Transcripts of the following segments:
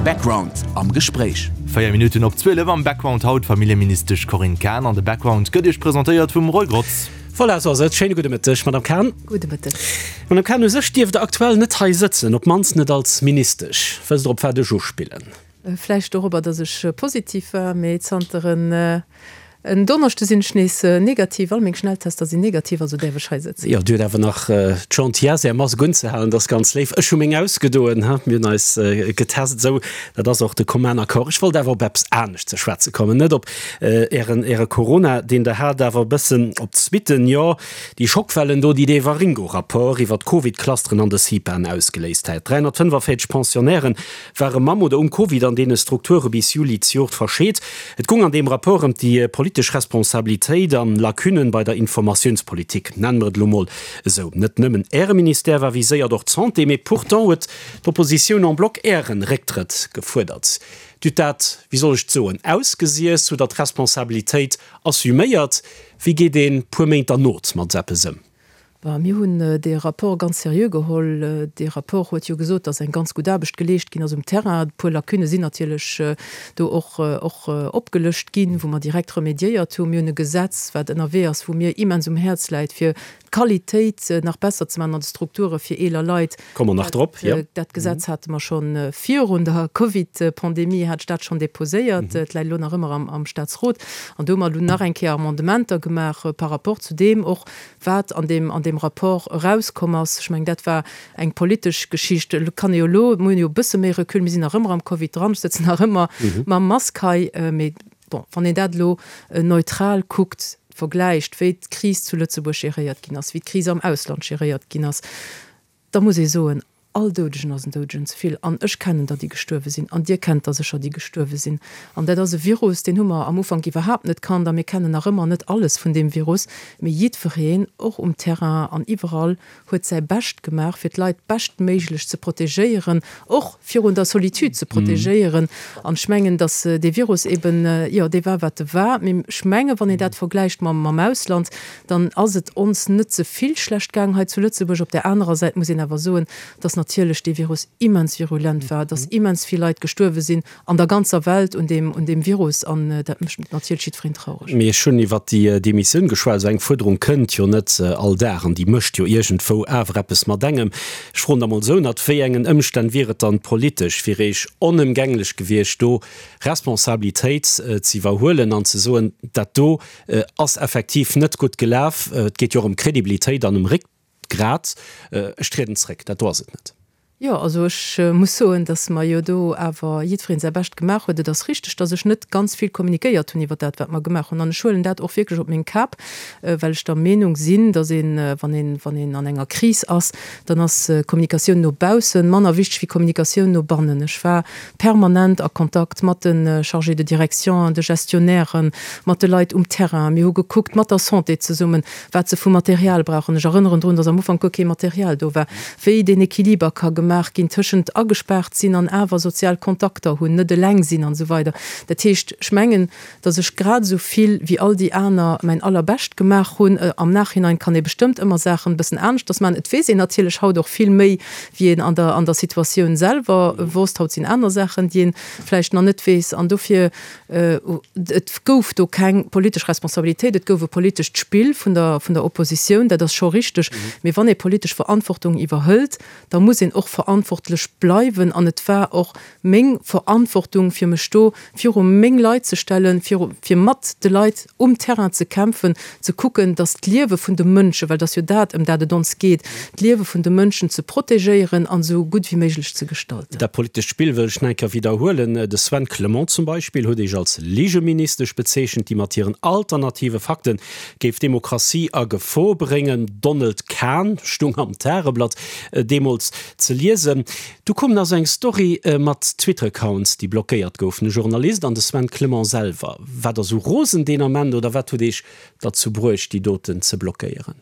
Background am Gespréich. 4 Minutten op 12 am Background haut d'Familljeministesch Corinne Cahen an de Background gëtt Iech presentéiert vum Roy Grotz. Voilà, esou ass et. Schéine gudde Mëtteg, Madame Cahen. Gudde Mëtteg. Madame Cahen, u sech dierft Der aktuell net hei sëtzen, op d'mannst net als Ministesch. Wësst Der, op wat ech uspillen? Vläicht dorobber, datt ech positiv war, mee zanter en Donneschde sinn ech nees negativ. All meng Schnelltester sinn negativ, also däerf ech hei sëtzen. Jo, Dir hutt awer nach d'Gentillesse, Är Mask unzehalen, dat ass ganz léif. Ech hu meng ausgedoen, ha, mir hunn eis getest, esou, dat ass och de commun accord. Ech wollt awer op eppes anescht ze schwätze kommen, net op Ären, Äre Corona, deen Der hat, awer e bëssen op d'Suitten, jo, déi Schockwellen do, déi dee Waringo-Rapport iwwer d'Covid-Clusteren an de CIPAen ausgeléist hat. 345 Pensionnairen ware mam oder um Covid an deene Strukture bis Juli zejoert verscheet. Et goung an deem Rapport ëm déi politesch Responsabilitéit an Lacunnen bei der Informatiounspolitik, nennen mer et elo mol esou. Net nëmmen Äre Ministère war viséiert, och d'Santé, mee pourtant huet d'Oppositioun en bloc Ären Récktrëtt gefuerdert. Dir hutt dat, wéi soll ech et soen, ausgesiess, hutt Der d'Responsabilitéit assuméiert. Wéi geet een puer Méint derno mat esou eppes ëm? Bon, mir hunn dee Rapport ganz seriö geholl. Dee Rapport huet jo gesot, dass eng ganz gutt Aarbecht geleescht ginn ass um Terrain. E puer Lacunne sinn natierlech do och och opgelëscht ginn, wou mer direkt remédiéiert hunn. Mir hunn e Gesetz, wat ënnerwee ass, wou mir immens um Häerz läit, fir d'Qualitéit nach besser ze maachen an de Strukture fir eeler Leit. Komme mer nach drop, jo. Dat Gesetz hate mer scho virun der Covid-Pandemie, hat ech dat schonn déposéiert. Et läit elo nach ëmmer am Statsrot. An do hu mer elo nach eng Kéier Amendementer gemaach par rapport zu deem och, wat an deem, an deem Rapport erauskomm ass. Ech mengen, dat war eng politesch Geschicht. Elo kann ee jo elo, mir hunn jo e bësse méi Recul, mir sinn nach ëmmer am Covid dran, ech sëtzen nach ëmmer mam Mask hei, mee bon, wann een dat elo neutral kuckt, vergläicht, wéi d'Kris zu Lëtzebuerg geréiert ginn ass, wéi d'Kris am Ausland geréiert ginn ass, da muss ee soen, All Doudegen ass en Doudegen ze vill. An ech kennen der, déi gestuerwe sinn. An Dir kennt der sécher, déi gestuerwe sinn. An dat ass e Virus, deen hu mer am Ufank iwwerhaapt net kannt. A mir kennen nach ëmmer net alles vun deem Virus. Mee jiddwereen, och um Terrain an iwwerall, huet säi Bescht gemaach, fir d'Leit beschtméiglech ze protegéieren, och virun der Solitude ze protegéieren. An ech mengen, datt dee Virus eben, jo, dee war, wat e war. Mee ech mengen, wann een dat vergläicht mam Ausland, dann ass et ons net ze vill schlecht gaang hei zu Lëtzebuerg. Op där anerer Säit muss een awer soen, dass natierlech dee Virus immens virulent war, dass immens vill Leit gestuerwe sinn an der ganzer Welt un deem, un deem Virus an dat mécht natierlech jiddwereen traureg. Mee ech hunn iwwert déi Demissioun geschwat. Esou eng Fuerderung kënnt jo net all Dag an déi mécht jo iergendwou awer eppes mat engem. Ech froen da mol esou, Ënnert wéi engen Ëmstänn wier et dann politesch fir Iech onëmgänglech gewiescht, do Responsabilitéit ze iwwerhuelen an ze soen, dat do Ass effektiv net gutt gelaf. Et geet jo och ëm Kredibilitéit an ëm Réckgrat. Ech trieden zréck, dat do ass et net. Jo, also ech muss soen, datt mer jo do awer jiddwereen säi Bescht gemaach huet. Et ass richteg, datt ech net ganz vill kommunikéiert hunn iwwer dat, wat mer gemaach hunn. An ech huelen dat och wierklech op meng Kap, well ech der Meenung sinn, datt een, wann een, wann een an enger Kris ass, dann ass Kommunikatioun no baussen manner wichteg wéi Kommunikatioun no bannen. Ech war permanent a Kontakt mat de Chargés de direction, de Gestionnairen, mat de Leit um Terrain. Mir hu gekuckt mat der Santé zesummen, wat se vu Material brauchen. Ech erënneren drun, dass am Ufank guer kee Material do war, wéi deen Equiliber ka gemaach ginn tëschent agespaart sinn an awer sozial Kontakter hunn, net eleng sinn an esou weider. Dat heescht, ech mengen, dass ech grad esou vill wéi all déi aner mäin Allerbescht gemaach hunn. Am Nachhinein kann ee bestëmmt ëmmer Saachen e bëssen aneschters maachen. Et weess een natierlech haut och vill méi, wéi een an der an der Situatioun selwer wosst. Haut sinn aner Saachen, déi ee vläicht nach net weess. An dofir, et gouf do keng politesch Responsabilitéit, et gouf e politescht Spill vun der vun der Oppositioun, dat ass scho richteg. Mee wann ee politesch Verantwortung iwwerhëlt, da muss een och verantwortlech bleiwen. An et war och meng Verantwortung, fir mech do viru meng Leit ze stellen, viru, fir mat de Leit um Terrain ze kämpfen, ze kucken, datt d'Liewe vun de Mënschen, well et ass jo dat, ëm dat et ons geet, d'Liewe vun de Mënschen ze protegéieren an esou gutt wéi méiglech ze gestalten. Dat politescht Spill wëll ech nach eng Kéier widderhuelen. De Sven Clement zum Beispill huet Iech als Ligeministesch bezeechent, déi mat hiren alternative Fakte géif d'Demokratie a Gefor bréngen. Donald Kahn stung am Tageblatt deemools ze liesen. Du koum nach sou eng Story mat Twitter-Accounts, déi blockéiert goufen. E Journalist an de Sven Clement selwer. Waart der sou rosen deen Ament oder wat huet Iech derzou bruecht, déi doten ze blockéieren?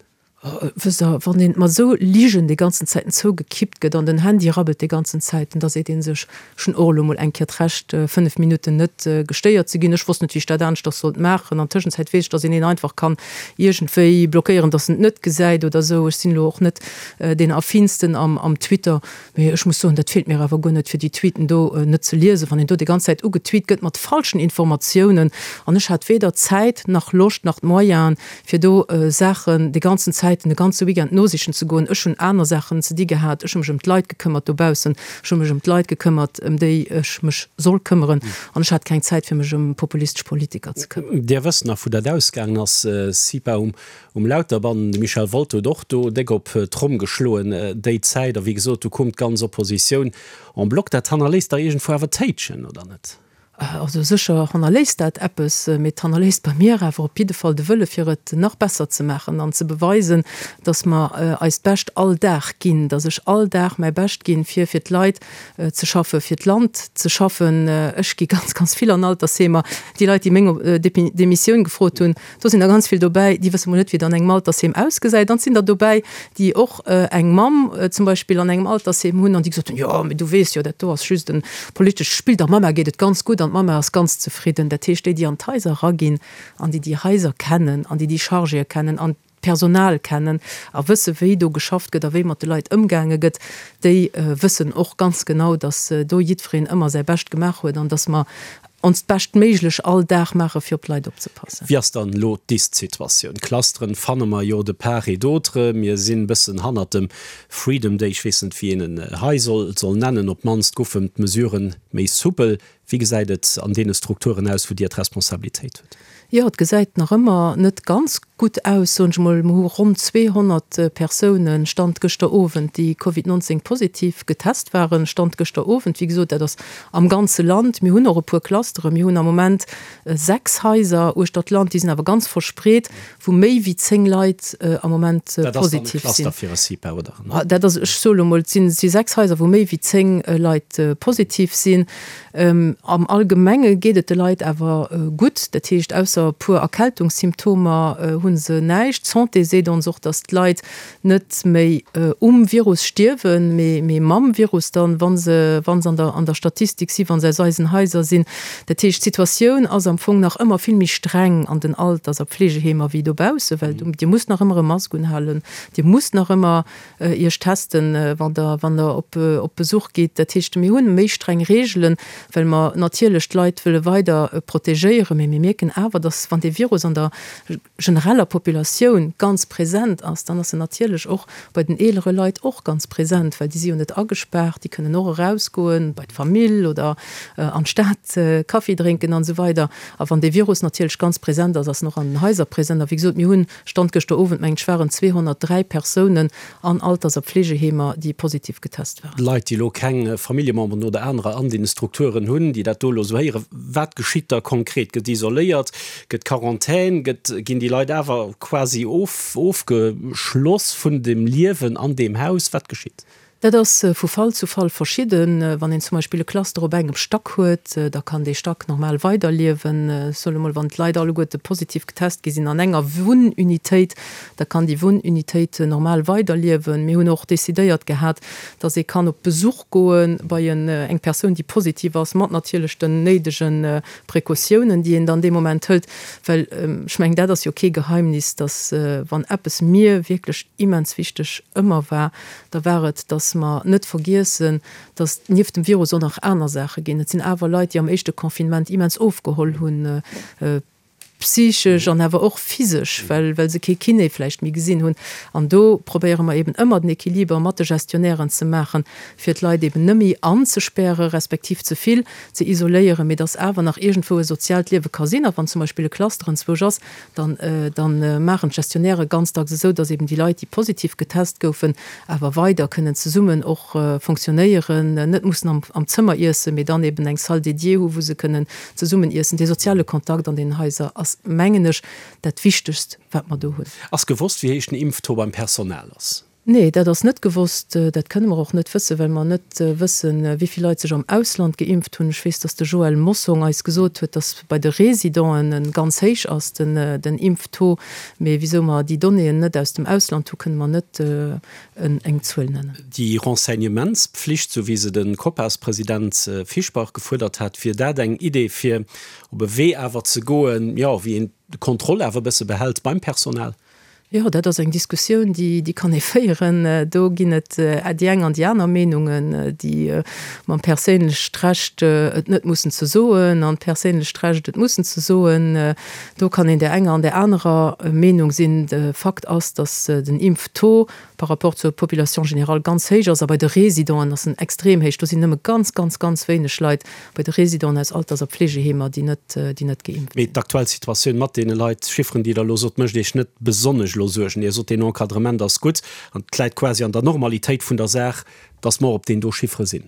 Wësst Der, wann een mat esou Ligen déi ganzen Zäiten zougekippt gëtt an den Handy rabbelt déi ganzen Zäiten, da seet ee sech, ech hunn och elo mol eng Kéier d'Recht, 5 Minutten net gestéiert ze ginn. Ech wosst net, wéi ech dat aneschters sollt maachen. An Tëschenzäit weess ech, dass een een einfach kann iergendwéi blockéieren, dass en et net gesäit oder esou. Ech sinn elo och net deen Affinsten am Twitter. Mee ech muss soen, dat feelt mir awer guer net, fir déi Tweeten do net ze liesen, wann een do déi ganz Zäit ugetweet gëtt mat falschen Informatiounen. An ech hat weder Zäit nach Loscht nach d'Moyenen, fir do Saachen déi ganzen Zäiten, de ganze Weekend nosichen ze goen. Ech hunn aner Saachen ze di gehat. Ech hu mech ëm d'Leit gekëmmert dobaussen. Ech hu mech ëm d'Leit gekëmmert, ëm déi ech mech soll këmmeren. An ech hat keng Zäit, fir mech ëm populistesch Politiker ze këmmeren. Dir wësst nach, wou dat ausgaangen ass, CIPA um Um Lauterbann, de Michel Wolter huet och do déck op d'Tromm geschloen déi Zäit. A wéi gesot, do koum d'ganz Oppositioun en bloc. Dat hannerléisst dach iergendwou awer Téitschen, oder net? Also sécher hannerléisst dat eppes, mee et hannerléisst bei mir awer op jidde Fall de Wëlle fir et nach besser ze maachen an ze beweisen, datt mer eist Bescht all Dag ginn, datt ech all Dag mäi Bescht ginn, fir fir d'Leit ze schaffen, fir d'Land ze schaffen. Ech gi ganz, ganz vill an Altersheemer. Déi Leit, déi meng Demissioun gefrot hunn, Do sinn der ganz vill dobäi, déi wësse mol net, wéi et an engem Altersheem ausgesäit. Dann sinn der dobäi, déi och eng Mamm zum Beispill an engem Altersheem hunn an déi gesot hunn, Jo, mee du weess jo, dat do ass just e politescht Spill, der Mamma geet et ganz gutt an d'Mamma ass ganz zefridden. Dat heescht, déi, déi an d'Haiser eraginn an déi déi Haiser kennen an déi déi Chargéë kennen an d'Personal kennen a wësse wéi do geschafft gëtt a wéi mat de Leit ëmgaange gëtt, déi wëssen och ganz genau, datt do jiddwereen ëmmer säi Bescht gemaach huet an datt mer onst Beschtméiglech all Dag maache fir op d'Leit opzepassen. Wéi ass dann elo d'Ist-Situatioun? Clusteren fanne mer jo de part et d'autre. Mir sinn bëssen hannert dem Freedom Day, ech weess net wéi een en hei soll soll nennen. Op d'mannst goufen d'Mesuren méi soupel. Wéi gesäit et an deene Strukturen aus, wou Dir d'Responsabilitéit hutt? Jo, et gesäit nach ëmmer net ganz gutt aus, soen ech emol. Mer hu ronn 200 Persounen, Stand gëschter Owend, déi Covid 19 positiv getest waren, Stand gëschter Owend. Wéi gesot, dat ass am ganze Land. Mir hunn och e puer Clusteren. Mir hunn am Moment 6 Haiser uechter d'Land, déi sinn awer ganz verspreet, wou méi wéi 10 Leit am Moment positiv sinn. Dat ass dann e Cluster fir e CIPA, oder? Dat ass, ech soe lo mol, et si 6 Haiser, wou méi wéi 10 Leit positiv sinn. Am Allgemenge geet et de Leit awer gutt, dat heescht ausser e puer Erkältungssymptomer hu se näischt. D'Santé seet ons och, datt d'Leit net méi um Virus stierwen, mee mam Virus dann, wa se wa se an der Statistik si, wa se aus eisen Haiser sinn. Dat heescht, d'Situatioun ass am Fong nach ëmmer vill méi streng an den Alters a Pflegeheemer wéi dobaussen, well Dir musst nach ëmmer e Mask unhalen, Dir musst nach ëmmer Iech testen, wann Der, wann Der op, op Besuch gitt. Dat heescht, mir hunn méi streng Reegelen, well mer natierlech d'Leit wëlle weider protegéieren. Mee mir mierken awer, dass, wann dee Virus an der genereller Populatioun ganz present ass, dann ass en natierlech och bei den eelere Leit och ganz present, well déi si jo net agespaart, déi kënnen och erausgoen bei d'Famill oder an d'Stad Kaffi drénken an esou weider. A wann dee Virus natierlech ganz present ass, ass en och an den Haiser present. A wéi gesot, mir hunn Stand gëschter Owend, mengen ech, waren 203 Persounen an Alters a Pflegeheemer, déi positiv getest waren. Leit, déi elo keng Familljememberen oder anerer an deene Strukturen hunn, déi dat do elo esou héieren, wat geschitt da konkret? Gëtt isoléiert? Gëtt Quarantän? Gëtt, ginn déi Leit awer quasi of, ofgeschloss vun dem Liewen an deem Haus? Wat geschitt? Dat ass vu Fall zu Fall verschidden. Wann een zum Beispill e Cluster op engem Stack huet, da kann dee Stack normal weiderliewen. Ech soen emol, wann d'Leit alleguerte positiv getest gi sinn an enger Wunnunitéit, da kann déi Wunnunitéit normal weiderliewen. Mir hunn och decidéiert gehat, dass ee kann op Besuch goe bei eng Persoun, déi positiv ass, mat natierlech den néidege Precautiounen, déi een dann dee Moment hëlt. Well ech mengen, dat ass jo kee Geheimnis, dass wann eppes mir wierklech immens wichteg ëmmer war, da war et, dass mer net vergiessen, dass nieft dem Virus och nach aner Saache ginn. Et sinn awer Leit, déi am éischte Confinement immens ofgeholl hunn, psychesch an awer och physesch, well, well se kee Kiné vläicht méi gesinn hunn. An do probéiere mer eben ëmmer den Equiliber mat de Gestionnairen ze maachen, fir d'Leit eben net méi anzespäre respektiv ze vill ze isoléieren, mee dass awer nach iergendwou e soziaalt Liewe ka sinn. A wann zum Beispill e Cluster enzwousch ass, dann dann maachen d'Gestionnairë ganz dacks esou, dass eben déi Leit, déi positiv getest goufen, awer weider kënnen zesummen och fonctionnéieren, net mussen am am Zëmmer iessen, mee dann eben eng Salle dédiée hu wou se kënnen zesummen iessen. Dee soziale Kontakt an deenen Haiser ass, mengen ech, dat Wichtegst, wat mer do hunn. Ass gewosst, wéi héich den Impftaux beim Personal ass? Nee, dat ass net gewosst. Dat kënne mer och net wëssen, well mer net wëssen, wéi vill Leit sech am Ausland geimpft hunn. Ech weess, datt de Joël Mossong eis gesot huet, datt bei de Residenten e ganz héich ass, den Impftaux. Mee wisou mer déi Donnéeën net aus dem Ausland hu, kënne mer net eng Zuel nennen. Déi Renseignementspflicht, sou wéi se de Copas-President Fischbach gefuerdert hat, wier dat eng Idee, fir op e Wee awer ze goen, jo, wéi een d'Kontroll awer e bësse behält beim Personal? Jo, dat ass eng Diskussioun, déi, déi kann ee féieren. Do ginn et déi eng an déi aner Meenungen, déi mam perséinlecht Recht, et net mussen ze soen, an d'perséinlecht Recht, et mussen ze soen. Do kann een där enger an där anerer Meenung sinn. De Fakt ass, datt den Impftaux par rapport zur Population générale ganz héich ass a bei de Résidenten ass en extrem héich. Do sinn nëmme ganz, ganz, ganz wéineg Leit bei de Résidenten aus Alters a Pflegeheemer, déi net, déi net geimpft Mee sinn. d'aktuell Situatioun mat deene Leit, Chifferen, déi Der elo sot, mécht Iech net besonnesch elo Suergen. Dir sot, deen Encadrement ass gutt an et läit quasi an der Normalitéit vun der Saach, dass mer op deen do Chiffere sinn.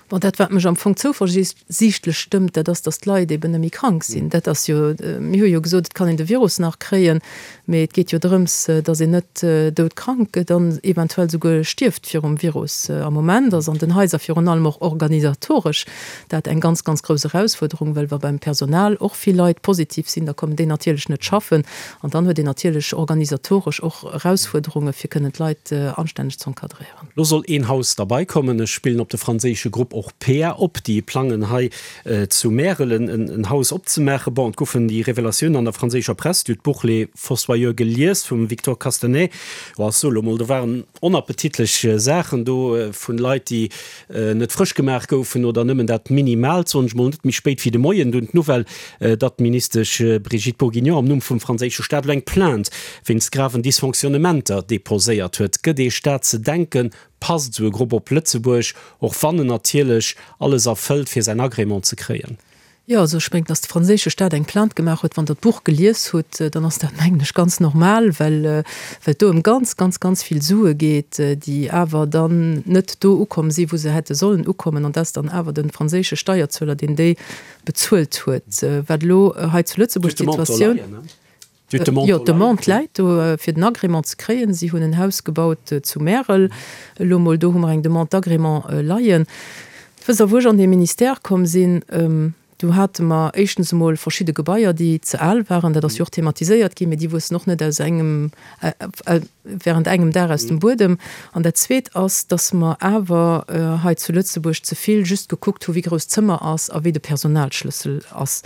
Bon, dat wat mech am Fong zouversiichtlech stëmmt, dat ass, dass d'Leit eben net méi krank sinn. Dat ass jo, mir hu jo gesot, et kann een de Virus nach kréien, mee et geet jo drëms, dass een net doudkrank gëtt an eventuell souguer stierft virum Virus. Am Moment ass an den Haiser virun allem och organisatoresch dat eng ganz, ganz grouss Erausfuerderung, well wa beim Personal och vill Leit positiv sinn, da kommen déi natierlech net schaffen an dann huet een natierlech organisatoresch och Erausfuerderunge fir kënnen d'Leit anstänneg z'encadréieren. Lo soll een Haus derbei kommen. Ech spillen op de franséische Grupp Orpea op, déi plangen hei zu Märel en Haus opzemaachen. Bon, et goufen déi Revelatiounen an der franséischer Press, Dir hutt d'Buch Les Fossoyeurs gelies vum Victor Castanet. Jo, ech soe lo mol, do waren onappetitlech Saachen do vun Leit, déi net frësch gemaach goufen oder nëmmen dat Minimaalt, soen ech mol. Net méi spéit wéi de Moien dunn d'Nouvelle, datt d'Ministesch Brigitte Bourguignon am Numm vum franséische Staat elo eng Plainte wéinst graven Dysfonctionnementer deposéiert huet. Gëtt ee Staat ze denken? Passt esou e Grupp op Lëtzebuerg, och wann en natierlech alles erfëllt, fir säin Agrément ze kréien? Jo, also ech mengen, datt de franséische Staat eng Plainte gemaach huet, wann Der d'Buch gelies hutt, dann ass dat, mengen ech, ganz normal, well well et do ëm ganz, ganz, ganz vill Sue geet, déi awer dann net do ukomm si wou se hätte sollen ukommen, an dat ass dann awer de franséische Steierzueler, deen déi bezuelt huet. Wat elo hei zu Lëtzebuerg d'Situatioun. Jo, d'Demande läit do, fir den Agrément ze kréien. Si hunn en Haus gebaut zu Märel elo mol. Do hu mer eng Demande d'agrément leien. Wësst Der, wou ech an dee Ministère komm sinn, do hate mer éischtens emol verschidde Gebaier, déi ze al waren. Dat ass jo och thematiséiert ginn, mee déi wuessen och net aus engem, während engem Dag aus dem Buedem. An dat Zweet ass, dass mer awer hei zu Lëtzebuerg ze vill just gekuckt hu wéi grouss d'Zëmmer ass a wéi de Personalschlëssel ass.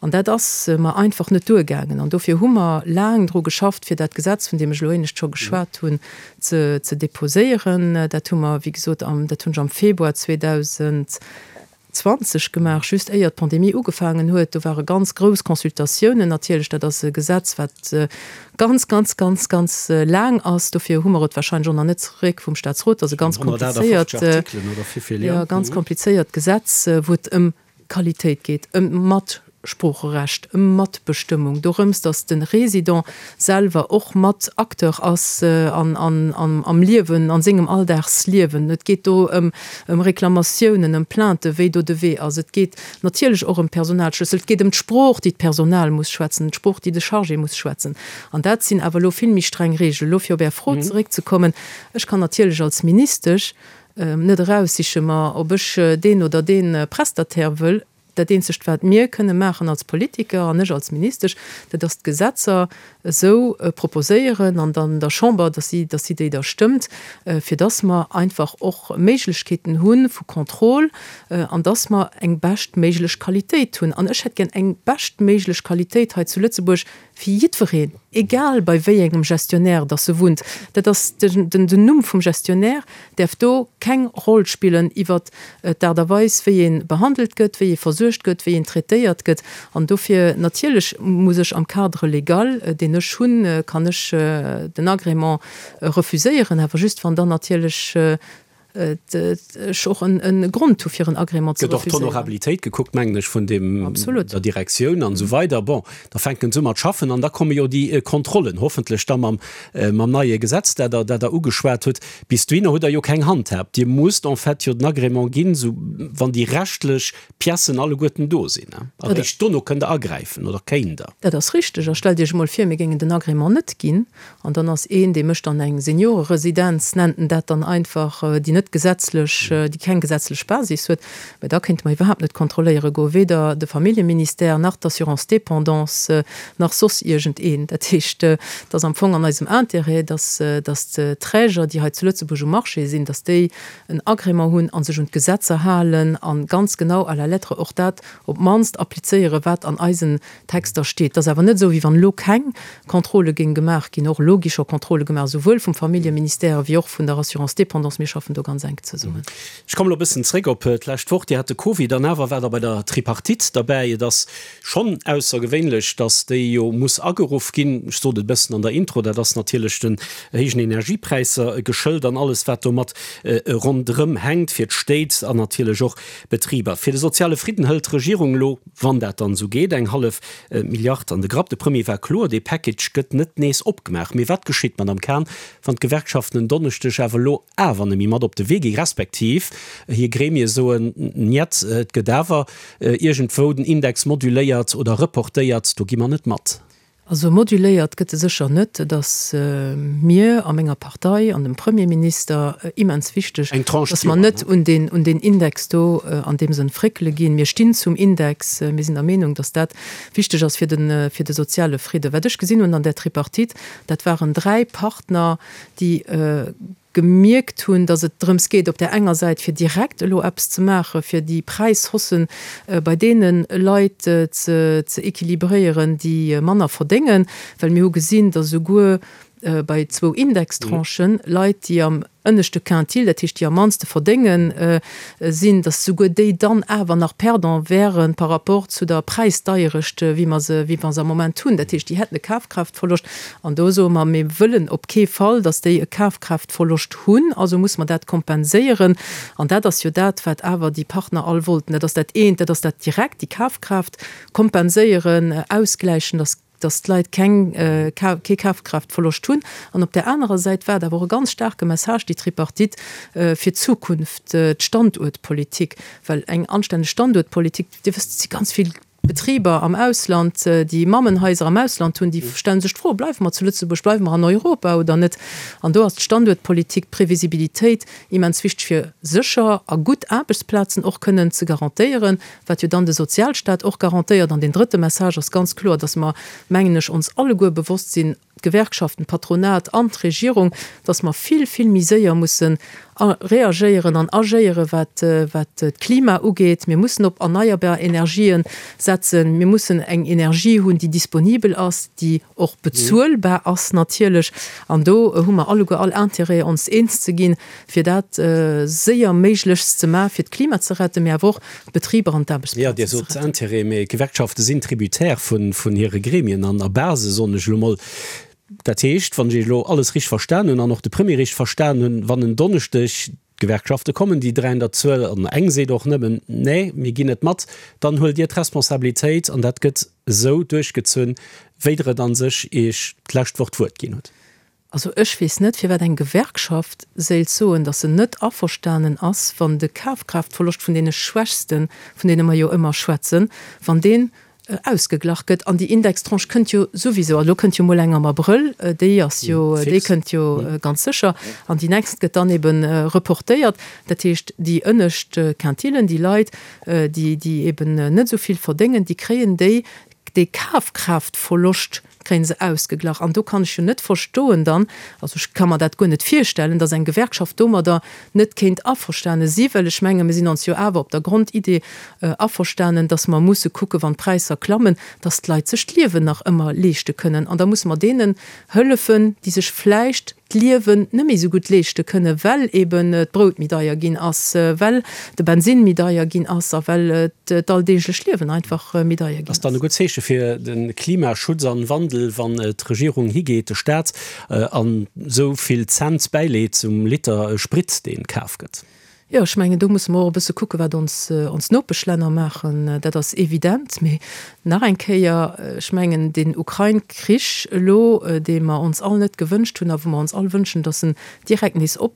An dat ass mer einfach net duergaangen. An dofir hu mer laang dru geschafft, fir dat Gesetz, vun deem ech elo éinescht scho geschwat hunn, ze ze déposéieren. Dat hu mer, wéi gesot, am, dat hunn ech am Februar 2000. 20 gemaach, just éier d'Pandemie ugefaangen huet. Do ware ganz grouss Consultatiounen natierlech. Dat ass e Gesetz, wat ganz, ganz, ganz, ganz laang ass. Dofir hu mer et wahrscheinlech och nach net zeréck vum Staatsrot. Dat ass e ganz komplizéiert, jo, ganz komplizéiert Gesetz, wou et ëm Qualitéit geet, ëm d'Matsproocherecht, ëm Matbestëmmung, dorëms, datt de Résident selwer och mat Acteur ass an am Liewen, an sengem Alldagsliewen. Et geet do ëm ëm Reklamatiounen, ëm Plainten, wéi do de Wee ass. Et geet natierlech och ëm d'Personalschlëssel. Et geet ëm d'Sprooch, déi d'Personal muss schwätzen, d'Sprooch, déi de Chargé muss schwätzen. An dat sinn awer elo vill méi streng Reegelen. Elo fir op Är Fro zeréckzekommen, Ech kann natierlech als Ministesch net eraussiche mer, ob ech deen oder dee Prestataire wëll. Dat eenzegt, wat mir kënne maachen als Politiker an ech als Ministesch, dat ass d'Gesetzer esou proposéieren an dann der Chamber, dass si, dass si déi da stëmmt, fir dass mer einfach och Méiglechkeeten hu vu Contrôle an dass mer eng beschtméiglech Qualitéit hunn. An ech hätt gär eng beschtméiglech Qualitéit hei zu Lëtzebuerg fir jiddwereen, egal bei wéi engem Gestionnaire dass e wunnt. Dat ass den, den Numm vum Gestionnaire däerf do keng Roll spillen iwwert d'Aart a Weis, wéi ee behandelt gëtt, wéi ee versuergt gëtt, wéi een traitéiert gëtt. An dofir natierlech muss ech am Cadre légal, deen ech hunn, kann ech den Agrément refuséieren, awer just wann dann natierlech. Ech och e Grond hu fir en Agrément ze refuséieren. Gëtt och d'Honorabilitéit gekuckt, mengen ech, vun deem, der Direktioun an esou weider. Bon, da fänken se u mat schaffen an da komme jo déi Kontrollen, hoffentlech da mam, mam neie Gesetz, dat Der, dat Der ugeschwat hutt. Bis dohinner hutt Der jo keng Handhab. Dir musst en fait jo den Agrément ginn, esou wann déi rechtlech Piècen alleguerten do sinn. A réischt dono kënnt Der agräifen oder kéint Der. Dat ass richteg. A stellt Iech emol vir, mir géingen den Agrément net ginn an dann ass een, dee mécht dann eng Senioreresidenz, nennt en dat dann einfach, déi net gesetzlech, déi keng gesetzlech Basis huet. Mä da kéinte mer iwwerhaapt net kontrolléiere goen, weder de Familljeministère nach d'Assurance dépendance nach soss iergendeen. Dat heescht, et ass am Fong an eisem Intérêt, dass, dass d'Träger, déi hei zu Lëtzebuerg um Marché sinn, dass déi en Agrément hunn a sech un d'Gesetzer halen a ganz genau à la lettre och dat op d'mannst applizéieren, wat an eisen Texter steet. Et ass awer net esou, wéi wann elo keng Contrôle géing gemaach ginn. Och elo gi scho Contrôle gemaach, esouwuel vum Familljeministère wéi och vun der Assurance dépendance. Mir schaffen do ganz enk zesummen. Ech kommen elo e bëssen zréck op d'lescht Woch. Dir hat de Covid an awer waart Der bei der Tripartite derbäi. Et ass schonn aussergewéinlech, datt déi jo muss ageruff ginn. Ech sot et e bëssen an der Intro, dat ass natierlech den héijen Energiepräisser geschëlt an alles wat domat ronderëm hänkt fir d'Stéit an natierlech och Betriber. Fir de soziale Fridden hëlt d'Regierung elo, wann dat dann esou geet, eng hallef Milliard an de Grapp. De Premier war kloer, dee Package gëtt net nees opgemaach. Mee wat geschitt, Madamm Cahen, wann d'Gewerkschaften en Donneschdeg awer elo awer net méi mat op de Wee gi respektiv hir Gremie soen, Njet, et gëtt awer iergendwou den Index moduléiert oder reportéiert, do gi mer net mat? Also moduléiert gëtt e sécher net. Et ass mir a menger Partei an dem Premierminister immens wichteg, datt mer net un deen, un deen Index do an deem Sënn fréckele ginn. Mir stinn zum Index. Mir sinn der Meenung, datt dat wichteg ass fir de, fir de soziale Fridde. Wat ech gesinn hunn an där Tripartite, dat waren 3 Partner, déi gemierkt hunn, datt et drëms geet, op där enger Säit fir direkt elo eppes ze maachen, fir déi Präishaussen bei deene Leit ze équilibréieren, déi manner verdéngen, well mir hu gesinn, datt esouguer bei zwou Indextranchen Leit, déi am ënneschte Quintil, dat heescht déi am mannste verdéngen, sinn, datt souguer déi dann awer nach Perdant wäre par rapport zu der Präisdeierecht, wéi mer se, wéi mer se am Moment hunn. Dat heescht, déi hätten e Kafkraaftverloscht. An do soe mer, mir wëllen op kee Fall, datt déi e Kafkraaftverloscht hunn, also musse mer dat kompenséieren. An dat ass jo dat, wat awer déi Partner all wollten. Dat ass dat eent, dat ass dat direkt, déi Kafkraaft kompenséieren, ausgläichen, datt datt d'Leit keng, kee Kafkraaftverloscht hunn. An op där anerer Säit war et awer och e ganz staarke Message, déi Tripartite, fir d'Zukunft, d'Standuertpolitik. Well eng anstänneg Standuertpolitik, Dir wësst, et si ganz vill Betriber am Ausland, déi Mammenhaiser am Ausland hunn, déi stelle sech d'Fro, Bleiwe mer zu Lëtzebuerg, bleiwe mer an Europa oder net? An do ass d'Standuertpolitik, d'Previsibilitéit immens wichteg, fir sécher a gutt Aarbechtsplazen och kënnen ze garantéieren, wat jo dann de Sozialstaat och garantéiert. An deen drëtte Message ass ganz kloer, dass mer, mengen ech, ons alleguer bewosst sinn, d'Gewerkschaften, d'Patronat an d'Regierung, dass mer vill, vill méi séier mussen reagéieren an agéieren, wat, wat d'Klima ugeet. Mir mussen op erneierbar Energien setzen. Mir mussen eng Energie hunn, déi disponibel ass, déi och bezuelbar ass natierlech. An do hu mer alleguer all Intérêt, ons eens ze ginn, fir dat séier méiglechst ze maachen, fir d'Klima ze retten, mee awer och d'Betriber an d'Aarbechtsplazen ze retten. Jo, Dir sot Intérêt, mee d'Gewerkschafte sinn tributaire vun hire Gremien an a Base, soen ech elo mol. Dat heescht, wann ech Iech elo alles richteg verstan hunn an och de Premier richteg verstan hunn, wann en Donneschdeg d'Gewerkschafte kommen, déi 3 an der Zuel, an eng seet och nëmmen, Nee, mir ginn net mat, dann huelt Dir d'Responsabilitéit an dat gëtt esou duerchgezunn, wéi Der et a sech Iech d'lescht Woch d'Wuert ginn hutt. Also ech weess net, firwat eng Gewerkschaft séilt soen, datt se net averstanen ass, wann de Kafkraaftverloscht vun deene Schwächsten, vun deene mer jo ëmmer schwätzen, wann deen ausgeglach gëtt. An déi Indextranche kënnt jo souwisou, also elo kënnt jo mol eng am Abrëll, déi ass jo, déi kënnt jo ganz sécher, an déi nächst gëtt dann ebe reportéiert. Dat heescht, déi ënnescht Quintilen, déi Leit, déi, déi eben net esou vill verdéngen, déi kréien déi, dee Kafkraaftverloscht kréien se ausgeglach. An do kann ech jo net verstoen dann, also ech ka mer dat guer net virstellen, datt eng Gewerkschaft domadder net kéint averstane si, well ech menge mir sinn ons jo awer op der Grondidee averstanen, datt mer musse kucken, wann d'Präisser klammen, datt d'Leit sech d'Liewen nach ëmmer leeschte kënnen. An da musse mer deenen hëllefen, déi sech vläicht. d'Liewen net méi esou gutt leeschte kënnen, well eben d'Brout méi deier ginn ass, well de Bensinn méi deier ginn ass a well d'alldeeglecht Liewen einfach méi deier ginn ass. Ass dann e gutt Zeeche fir de Klimaschutz an Wandel, wann d'Regierung higeet, de Staat, an esou vill Cent bäileet um Liter Sprit, dee kaf gëtt? Jo, ech mengen, do musse mer och e bësse kucken, wat ons, ons Nopeschlänner maachen. Dat ass evident. Mee nach eng Kéier, ech mengen, deen Ukrain-Krich elo, dee mer ons all net gewënscht hunn a wou mer ons all wënschen, datt en direkt nees op,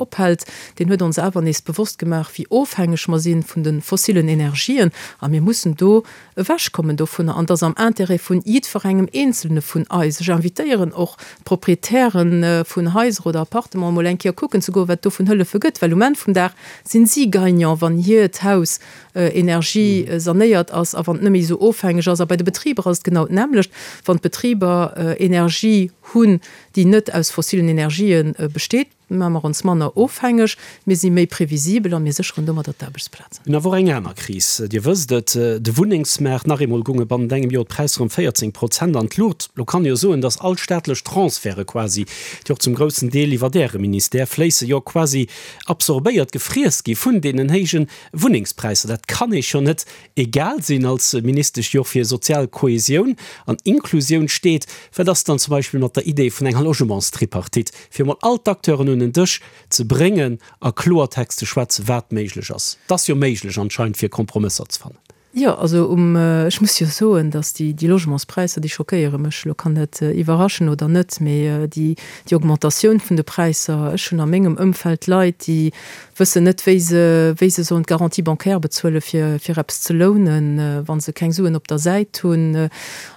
ophält, deen huet ons awer nees bewosst gemaach, wéi ofhängeg mer si vun de fossilen Energien. A mir mussen do ewechkommen dovunner. An et ass am Intérêt vun jiddwerengem Eenzelne vun eis. Ech invitéieren och d'Proprietären vun Haiser oder Appartementen, emol eng Kéier kucken ze goen, wat et do vun Hëllefe gëtt, well um Enn vum Dag sinn si Gagnant, wann hiert Haus energiesanéiert ass a wann et net méi esou ofhängeg ass. A bei de Betriber ass et genau d'nämmlecht. Wann d'Betriber Energie hunn, déi net aus fossilen Energië besteet, Maache mer ons manner ofhängeg, mir si méi previsibel a mir sécheren domadder d'Aarbechtsplazen. Mir hunn awer och eng aner Kris, Dir wësst et, de Wunnengsmaart. Nach eemol gounge bannent engem Joer d'Präisser ëm 14 Prozent an d'Luucht. Lo kann ee jo soen, datt all staatlech Transferte quasi, déi och zum groussen Deel iwwert Äre Ministère fléissen, jo quasi absorbéiert, gefriess gi vun deenen héije Wunnengspräisser. Dat kann Iech jo net egal sinn als Ministesch, déi och fir sozial Kohesioun an Inklusioun steet. Wat ass dann zum Beispill mat der Idee vun enger Logementstripartite, fir emol all d'Acteuren un en Dësch ze bréngen a Kloertext ze schwätzen, wat méiglech ass? Et ass jo méiglech anscheinend, fir Kompromësser ze fannen. Jo, also um, ech muss jo soen, datt déi, déi Logementspräisser, déi schockéiere mech. Elo kann dat iwwerraschen oder net, mee déi, déi Augmentatioun vun de Präisser, ech hunn a mengem Ëmfeld Leit, déi wëssen net, wéi se, wéi se sollen d'Garantie bancaire bezuelen, fir, fir eppes ze lounen, wa se keng Suen op der Säit hunn.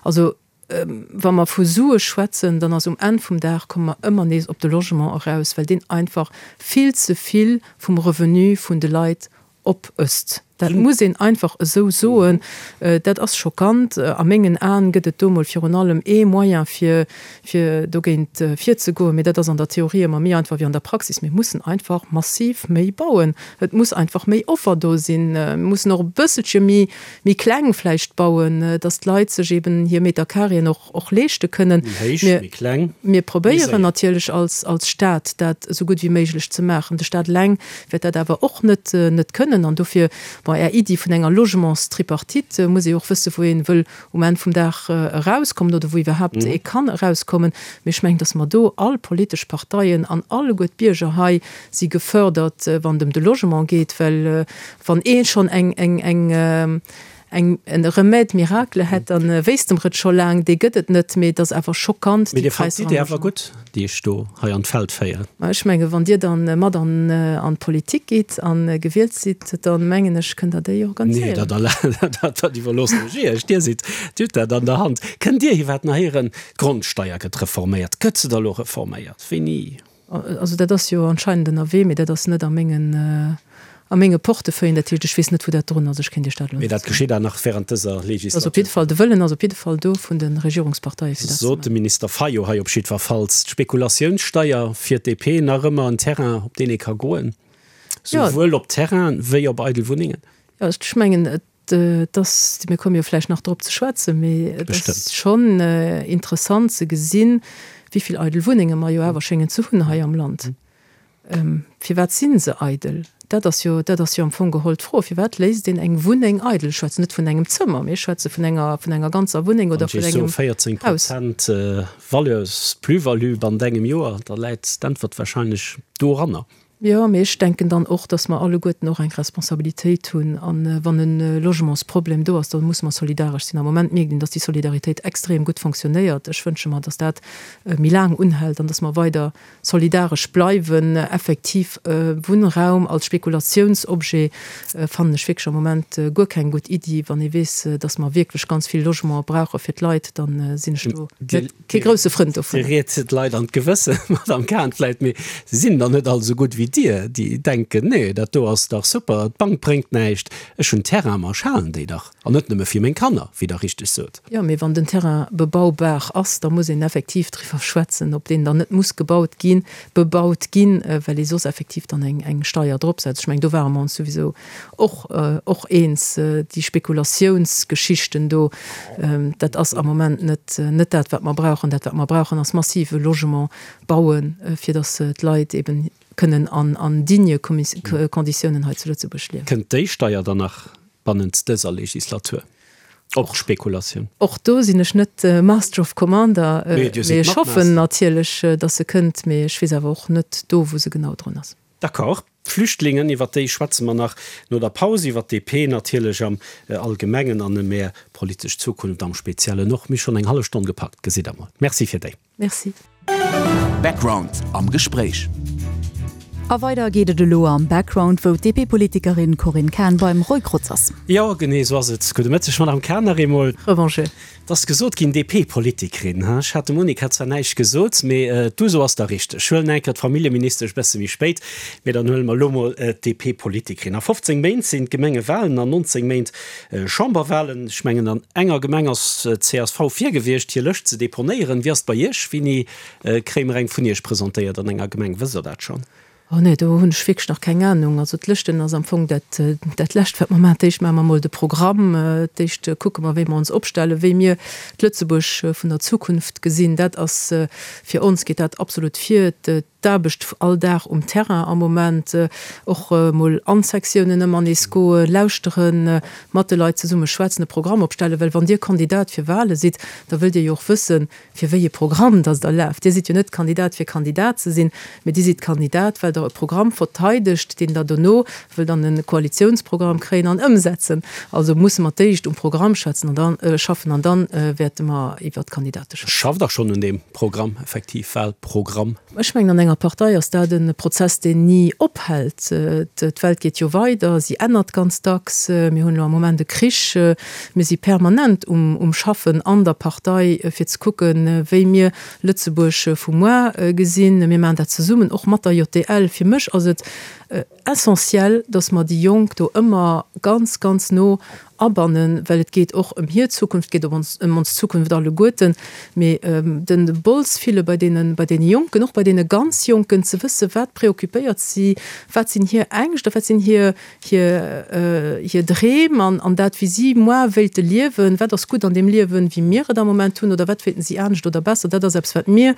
Also, wa mer vu Sue schwätzen, dann ass um Enn vum Dag, komme mer ëmmer nees op de Logement eraus, well deen einfach vill ze vill vum Revenu vun de Leit opësst. Dat muss een einfach esou soen. Dat ass schockant. A mengen Aen gëtt et do mol virun allem ee Moyen, fir, fir dogéint virzegoen, mee dat ass an der Theorie ëmmer méi einfach wéi an der Praxis. Mir mussen einfach massiv méi bauen. Et muss einfach méi Offer do sinn. Mir mussen och e bësselche méi, méi kleng vläicht bauen, dass d'Leit sech eben hir Metercarréen och, och leeschte kënnen. Méi héich, méi kleng, Mir probéieren natierlech als, als Stat dat esou gutt wéi méiglech ze maachen. De Stat eleng wäert dat awer och net, net kënnen. An dofir, bon, Är Iddi vun enger Logementstripartite, muss ee och wëssen, wou ee wëll um Enn vum Dag erauskommen oder wou iwwerhaapt ee kann erauskommen. Mee ech mengen, dass mer do all politesch Parteien an alleguer d'Bierger hei si gefördert, wann et ëm de Logement geet, well wann ee schonn eng, eng, eng, eng, e Remède miracle hätt, da wéisste mer et scho laang. Dee gëtt et net, mee et ass awer schockant, Mee déi Dir fannt Präisser am d'Idee awer Logement. gutt, déi ech do hei an d'Feld féieren? Ma ech menge wann Dir dann mat an, an d'Politik gitt a gewielt sidd, da mengen ech, kënnt Der déi Nee, organiséieren. dat, dat, dat iwwerloossen ech Iech. Dir sidd, Dir hutt dat an der Hand. Kënnt Dir iwwerhaapt nach héieren, d'Grondsteier gëtt reforméiert? Gëtt se da lo reforméiert? Wéini? Also dat ass jo anscheinend ënnerwee, mee dat ass net a mengen, a menge Portefeuillen. Dat heescht, ech weess net, wou dat drun ass. Ech kéint Iech dat elo Mee net dat soen. geschitt awer nach während dëser Ass op jidde Fall, de Wëllen ass op jidde Fall do vun de Regierungsparteie fir dat ze Sot de maachen. Minister Fayot hei op jiddwerfalls. D'Spekulatiounssteier fir d'DP nach ëmmer en Terrain, op deen ee ka goen, Jo. souwuel op Terrainen wéi op eidel Wunnengen. Jo, ech mengen, et Et ass, mir komme jo vläicht nach drop ze schwätzen, mee et ass schonn interessant ze gesinn, wéi vill eidel Wunnenge mer jo awer schéngen ze hunn hei am Land. Firwat si se eidel? Dat ass jo, dat ass jo am Fong geholl d'Fro. Firwat léisst een eng Wunneng eidel? Ech schwätzen net vun engem Zëmmer, mee ech schwätze vun enger, vun enger ganzer Wunneng oder vun engem Haus. 14 Prozent Valeurs, Plus-value bannent engem Joer, da läit d'Äntwert wahrscheinlech doranner. Jo, mee ech denken dann och, dass mer alleguerten och eng Responsabilitéit hunn. A wann e Logementsproblem do ass, da musse mer solidaresch sinn. Am Moment mierkt een, dass déi Solidaritéit extrem gutt fonctionnéiert. Ech wënsche mer, dass dat méi laang unhält an dass mer weider solidaresch bleiwen. Effektiv, Wunnraum als Spekulatiounsobjet fannen ech wierklech am Moment guer keng gutt Iddi. Wann ee weess, dass mer wierklech ganz vill Logementen brauche fir d'Leit, da sinn ech do net Kee grousse Frënd dovun. Dir riet d'Leit an d'Gewëssen, Madame Cahen, vläit, mee se sinn der net all esou gutt wéi. wéi Dir, déi denken, nee, dat do ass dach super, d'Bank bréngt näischt, ech hunn Terrain, ma ech halen déi dach, an net nëmme fir meng Kanner, wéi Der richteg sot. Jo, mee wann den Terrain bebaubar ass, da muss een effektiv driwwer schwätzen, ob deen dann net muss gebaut ginn, bebaut ginn, well ee soss effektiv dann eng Steier drop setzt. Ech mengen, do ware mer ons souwisou och och eens. Déi Spekulatiounsgeschichten do, dat ass am Moment net net dat, wat mer brauchen. Dat, wat mer brauchen, ass massive Logement bauen, fir datt d'Leit eben kënnen an an digne Konditiounen hei zu Lëtzebuerg liewen. Kënnt déi Steier dann nach bannent dëser Legislatur op d'Spekulatioun? Och do sinn ech net Master of Commander, mee ech hoffen natierlech, datt se kënnt, mee ech weess awer och net do, wou se genau drun ass. D'accord. D'Flüchtlingen, iwwer déi schwätze mer nach no der Paus, iwwer d'DP natierlech am Allgemengen an ëm Är politesch Zukunft am Speziellen och. Mir hu schonn eng hallef Stonn gepackt, gesitt Der mol. Merci fir déi. Merci. Background am Gespréich. A weider geet et elo am Background, wou d'DP-Politikerin Corinne Cahen beim Roy Grotz ass. Jo, genee esou ass et. Gudde Mëtteg, Madame Cahen, nach eemol. Revanche. Et ass gesot ginn, DP-Politikerin, ha? Ech hat dem Monica zwar näischt gesot, mee d'Uso ass da richteg. Ech huelen eng Kéier d'Familljeministesch e bësse méi spéit, mee dann huele mer elo mol d'DP-Politikerin. A 15 Méint sinn d'Gemengewalen, an 19 Méint Chamberwalen. Ech mengen, an enger Gemeng ass csv vir gewiescht, hir Lëscht ze deponéieren. Wéi ass et bei Iech? Wéini kréie mer eng vun Iech presentéiert an enger Gemeng? Wësst Der dat schonn? Oh nee, do hunn ech wierklech nach keng Anung. Also d'Lëschten ass am Fong dat, dat Lescht, wat mer maachen. D'éischt maache mer emol de Programm, d'éischt kucke mer, wéi mer ons opstellen, wéi mir d'Lëtzebuerg vun der Zukunft gesinn. Dat ass, fir ons geet dat absolut vir. D'Aarbecht all Dag um Terrain am Moment, och mol an d'Sektiounen ëmmer nees goen, lauschteren, mat de Leit zesumme schwätzen, e Programm opstellen, well wann Dir Kandidat fir Wale sidd, da wëllt Dir jo och wëssen, fir wéi e Programm dass Der laaft. Dir sidd jo net Kandidat fir Kandidat ze sinn, mee Dir sidd Kandidat, well Der e Programm verteidegt, deen Der dono wëllt an e Koalitiounsprogramm kréien an ëmsetzen. Also musse mer d'éischt um Programm schwätzen an dann schaffen an dann wäerte mer iwwert d'Kandidate schwätzen. Schafft Der schonn un deem Programm, effektiv Wahlprogramm? Ech mengen, an enger Partei ass dat e Prozess, deen ni ophält. D'Welt geet jo weider, si ännert ganz dacks. Mir hunn elo am Moment e Krich. Mir si permanent um Schaffen an der Partei, fir ze kucken, wéi mir Lëtzebuerg vu muar gesinn. Mir maachen dat zesummen, och mat der JDL. Fir mech ass et essentiel, dass mer déi Jonk do ëmmer ganz, ganz no abannen, well et geet och ëm hir Zukunft, et geet och ëm ons Zukunft alleguerten. Mee den Bols fille bei deene, bei deene Jonken, och bei deene ganz Jonken, ze wësse wat préoccupéiert si, wat sinn hir Ängscht a wat sinn hir, hir, hir Dreem an, an dat wéi si moar wéilte liewen, wat ass gutt an deem Liewen, wéi mir et am Moment hunn, oder wat wéilten si anescht oder besser. Dat ass eppes, wat mir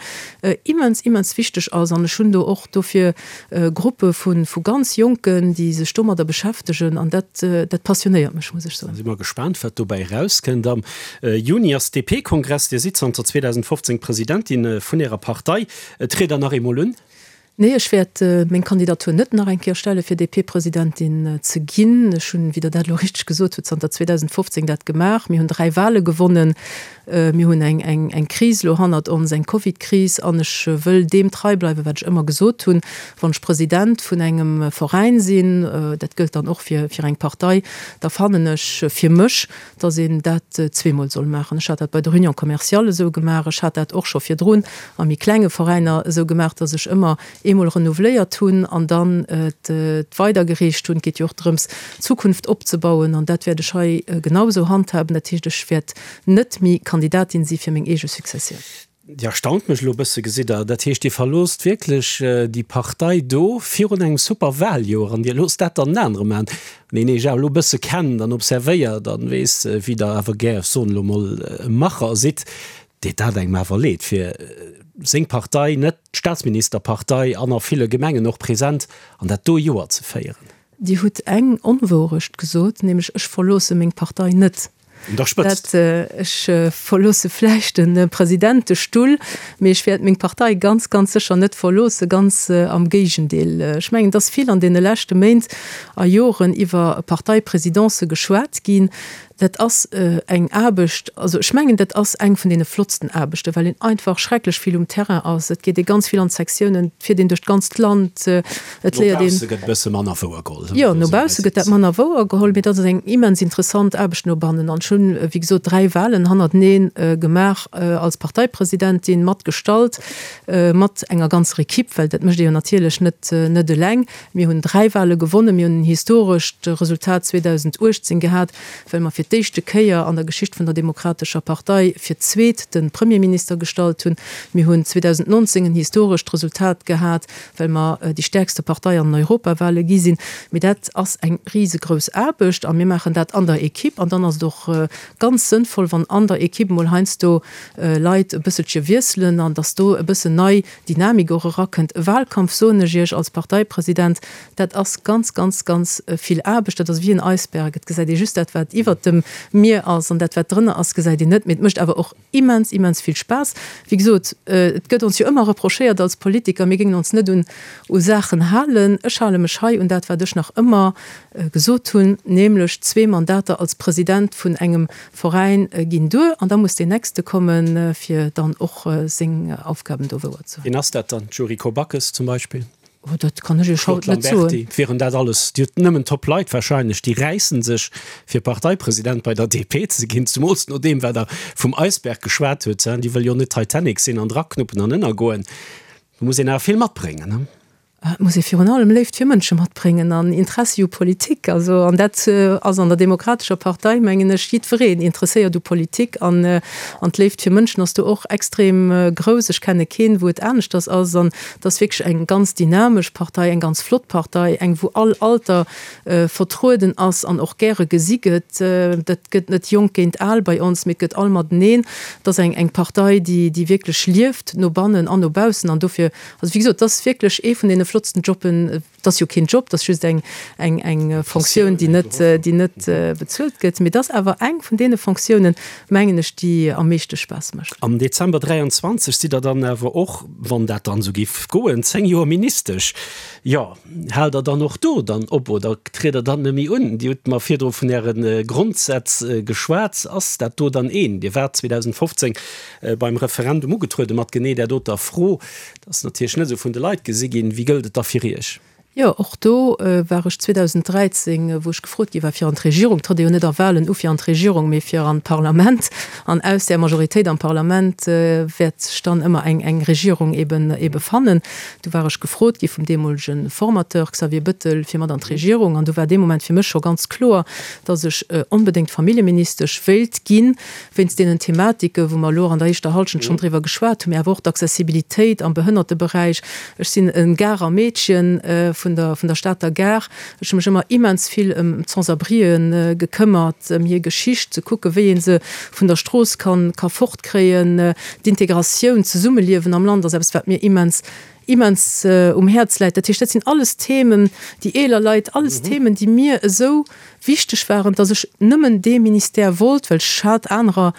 immens, immens wichteg ass an ech hunn do och dofir Gruppe vu ganz Jonken, déi sech domadder beschäftegen an dat, dat passionéiert mech, muss ech soen. Da si mer gespaant, wat dobäi erauskënnt. Am Juni ass DP-Kongress. Dir sidd zanter 2015 Presidentin vun Ärer Partei. Triet Der nach eemol un? Nee, ech wäert meng Kandidatur net nach eng Kéier stelle fir DP-Presidentin ze ginn. Ech hunn, wéi Der dat elo richteg gesot hutt, zanter 2015 dat gemaach. Mir hunn 3 Wahle gewonnen. Mir hunn eng Kris elo hannert ons, eng Covid-Kris, an ech wëll deem trei bleiwen, wat ech ëmmer gesot hunn, Wann ech President vun engem Veräin sinn, dat gëllt dann och fir eng Partei, da fannen ech fir mech, datt een dat zweemol soll maachen. Ech hat dat bei der Union commerciale esou gemaach, ech hat dat och scho virdrun a méi klenge Veräiner esou gemaach, datt ech ëmmer eemol renouveléiert hunn an dann et weidergereecht hunn. Et geet jo och drëms, d'Zukunft opzebauen, an dat wäert ech hei genau esou handhaben. Dat heescht, ech wäert net méi Kandidatin si fir meng eege Successioun. Dir erstaunt mech elo e bësse, gesitt Der. Dat heescht, Dir verloosst wierklech déi Partei do virun engem super Wahljoer an Dir loosst dat dann en anere maachen, deen Iech awer elo e bësse kennt an observéiert an weess, wéi Der awer gär, ech soen elo mol, e Macher sidd. Deet dat engem awer leed, fir seng Partei, net d'Staatsministerpartei an a ville Gemengen och present, an dat do Joer ze féieren. Dir hutt eng Onwourecht gesot, nämlech ech verloosse meng Partei net. Un der Spëtzt. Dat, ech verloosse vläicht de Presidentestull, mee ech wäert meng Partei ganz, ganz sécher net verloossen, ganz am Géigendeel. Ech mengen, et ass vill an deene leschte Méint a Joren iwwer Parteiprésidencë geschwat ginn. Dat ass eng Aarbecht, also ech mengen, dat ass eng vun deene flottsten Aarbechten, well een einfach schrecklech vill um Terrain ass. Et geet ee ganz vill an d'Sektiounen, et fiert een duerch d'ganzt Land, et léiert een. No bausse gëtt e bësse manner wouer geholl. Jo, no bausse gëtt dat manner wouer geholl, mee dat ass eng immens interessant Aarbecht no bannen. An ech hunn, wéi gesot, 3 Wahlen hannertenee gemaach als Parteipresidentin, mat gestallt, mat enger ganzer Equipe, well dat mécht ee jo natierlech net net eleng. Mir hunn 3 Wahle gewonnen, mir hunn en historescht Resultat 2018 gehat, well mer fir d'éischte Kéier an der Geschicht vun der Demokratescher Partei fir d'zweet de Premierminister gestallt hunn. Mir hunn 2019 en historescht Resultat gehat, well mer déi stäerkste Partei an den Europawale gi sinn. Mee dat ass eng risegrouss Aarbecht a mir maachen dat an der Equipe. An dann ass et och ganz sënnvoll, wann an der Equipe emol heiansdo Leit e bësselche wiesselen an datt do e bëssen nei Dynamik och erakënnt. E Wahlkampf, soen ech Iech als Parteipresident, dat ass ganz, ganz, ganz vill Aarbecht. Dat ass wéi en Eisberg, et gesäit ee just dat, wat iwwert dem Mier ass, an dat, wat drënner ass, gesäit een net. Mee et mécht awer och immens, immens vill Spaass. Wéi gesot, et gëtt ons jo ëmmer reprochéiert als Politiker, mir géingen ons net un u Saachen halen. Ech hale mech hei un dat, wat ech nach ëmmer gesot hunn, nämlech zwee Mandater als President vun engem Veräin ginn duer an da muss deen nächste kommen, fir dann och seng Aufgaben do wouer ze huelen. Wien ass dat dann? D'Yuriko Backes zum Beispill? Oh, dat kann ech Iech haut net soen. Claude Lamberty, Wieren dat alles, Dir hutt nëmmen top Leit wahrscheinlech, déi räissen sech fir Parteipresident bei der DP ze ginn, zemools no deem wat Der vum Eisberg geschwat hutt, déi wëll jo net Titanic sinn an draknuppen an ënnergoen. Do muss een awer vill matbréngen, ne? Et muss ee virun allem Léift fir Mënsche matbréngen an Interessi u Politik. Also, an dat ass an der Demokratescher Partei, mengen ech, jiddwereen interesséiert u Politik an an d'Léift fir Mënschen ass do och extrem grouss. Ech kenne keen, wou et aneschters ass. An et ass wierklech eng ganz dynamesch Partei, eng ganz flott Partei, eng wou all Alter vertrueden ass an och gäre gesi gëtt. Dat gëtt net jonk géint al bei ons, mee et gëtt all mateneen. Et ass eng eng Partei, déi déi wierklech lieft, no bannen an no baussen. An dofir Also wéi gesot, et ass wierklech ee vun deene flottsten Jobben. Et ass jo keen Job, et ass just eng, eng, eng Fonctioun, déi net, déi net bezuelt gëtt. Mee et ass awer eng vun deene Fonctiounen, mengen ech, déi am meeschte Spaass mécht. Am Dezember 23 sidd Der dann awer och, wann dat dann esou géif goen, 10 Joer Ministesch. Jo, haalt Der dann och do dann op oder triet Der dann net méi un? Dir hutt mer virdru vun Äre Grondsätz geschwat. Ass dat do dann een? Dir waart 2015 beim Referendum ugetruede mat genee där doter Fro. Dat ass natierlech net esou vun de Leit gesi ginn. Wéi gëllt et da fir Iech? Jo, och do war ech 2013, wou ech gefrot gi war fir an d'Regierung, et trëtt ee jo net a Wahlen u fir an d'Regierung, mee fir an d'Parlament, an aus där Majoritéit am Parlament wäert sech dann ëmmer eng eng Regierung eben ebe fannen. Du war ech gefrot gi vum deemolege Formateur Xavier Bëttel fir mat an d'Regierung, an du war dee Moment fir mech scho ganz kloer, datt ech onbedéngt Familljeministesch wéilt ginn, wéinst deenen Thematike wou mer elo an der éischter Halschent schonn driwwer geschwat hunn, mee awer och d'Accessibilitéit am Behënnerteberäich. Ech sinn e Garer Meedchen vun der vun der Stater Gare. Ech hu mech ëmmer immens vill ëm d'Sans-abrien gekëmmert, ëm hir Geschicht, ze kucke wéi ee se vun der Strooss kann ka fortkréien. D'Integratioun, d'Zesummeliewen am Land ass eppes wat mir immens immens um Häerz läit. Dat heescht, dat sinn alles Themen, déi eeler Leit, alles Themen, déi mir esou wichteg waren, dass ech nëmmen dee Ministère wollt, well ech hat anerer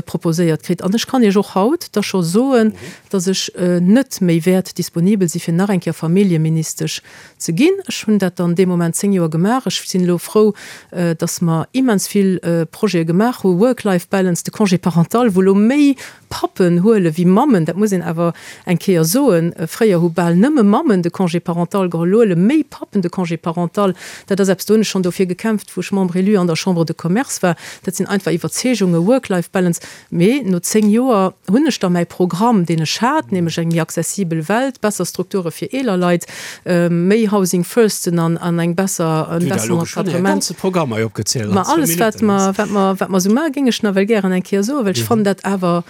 proposéiert kritt. An ech kann Iech och haut da scho soen, dass ech net méi wäert disponibel si fir nach eng Kéier Familljeministesch ze ginn. Ech hunn dat dann dee Moment 10 Joer gemaach. Ech sinn elo frou, dass mer immens vill Projete gemaach hu, Work-Life-Balance, de Congé parental, wou elo méi Pappen huele wéi Mammen, dat muss een awer eng Kéier soen. Fréier hu bal nëmme Mammen de Congé parental geholl, elo huele méi Pappen de Congé parental. Dat ass eppes, do hunn ech schonn dofir gekämpft, wou ech Membre élu an der Chambre de Commerce war. Dat sinn einfach Iwwerzeegungen, Work-Life-Balance. Mee no 10 Joer hunn ech da mäi Programm, deen ech hat, nämlech eng méi accessibel Welt, besser Strukture fir eeler Leit, méi Housing Firsten an eng besser, en besseren Encadrement. Ma alles wat mer, wat mer, wat mer esou maachen, géing ech nawell gären eng Kéier soen, well ech fannen dat awer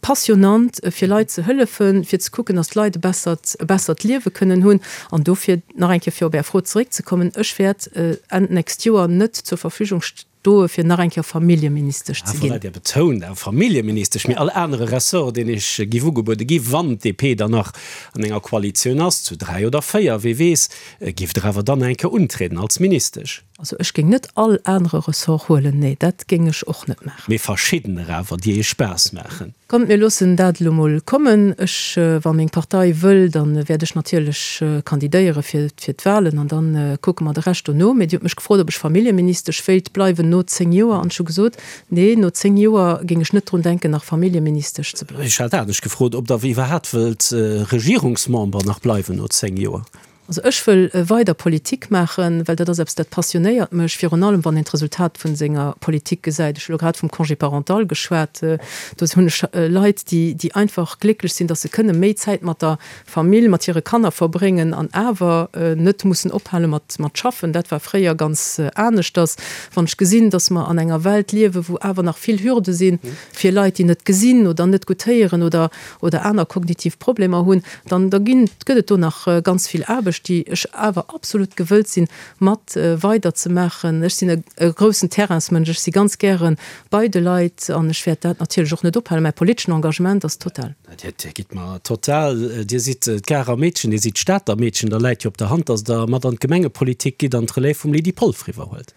passionnant, fir Leit ze hëllefen, fir ze kucken, datt d'Leit e bessert, e bessert Liewe kënnen hunn. An dofir nach eng Kéier, fir op Är Fro zeréckzekommen, Ech wäert Enn d'nächst Joer net zur Verfügung stoe fir nach eng Kéier Familljeministesch ze ginn. Voilà, Dir betount awer Familljeministesch, mee all anere Ressort, deen Iech giff ugebuede gi wann d'DP dann nach an enger Koalitioun ass, zu 3 oder 4, wee weess, giff Der awer dann eng Kéier untrieden als Ministesch. Also ech géing net all anere Ressort huelen, nee, dat géing ech och net maachen. Mee verschiddener awer, déi Iech Spaass maachen. Kommt, mir loossen dat elo mol kommen. Ech, wa meng Partei wëll, da wäert ech natierlech kandidéiere fir d'Wahlen an da kucke mer de Rescht dono. Mee Dir hutt mech gefrot, ob ech Familljeministesch wéilt bleiwen no 10 Joer an ech hu gesot, nee, no 10 Joer géing ech net drun denken, nach Familljeministesch ze bleiwen. Ech hat anescht gefrot, ob Der iwwerhaapt wëllt Regierungsmember nach bleiwen no 10 Joer. Also ech wëll weider Politik maachen, well dat ass eppes, dat passionéiert mech, virun allem wann een d'Resultat vun senger Politik gesäit. Ech hu lo grad vum Congé parental geschwat, do hunn ech Leit, déi, déi einfach glécklech sinn, datt se kënne méi Zäit mat der Famill, mat hire Kanner verbréngen an awer net mussen ophale mat, mat schaffen. Dat war fréier ganz aneschters. Wann ech gesinn, datt mer an enger Welt liewen, wou awer nach vill Hürde sinn fir Leit, déi net gesinn oder net gutt héieren oder, oder aner kognitiv Problemer hunn, dann da ginn, gëtt et do nach ganz vill Aarbecht, déi ech awer absolut gewëllt sinn, mat weider ze maachen. Ech sinn e groussen Terrainsmënsch, ech si ganz gäre bei de Leit an ech wäert dat natierlech och net ophalen. Mäi politeschen Engagement ass total. Dir gitt mer total. Dir sidd d'Garer Meedchen, Dir sidd d'Stater Meedchen, da läit jo op der Hand, datt Der mat an d'Gemengepolitik gitt an d'Relève vum Lydie Polfer iwwerhuelt.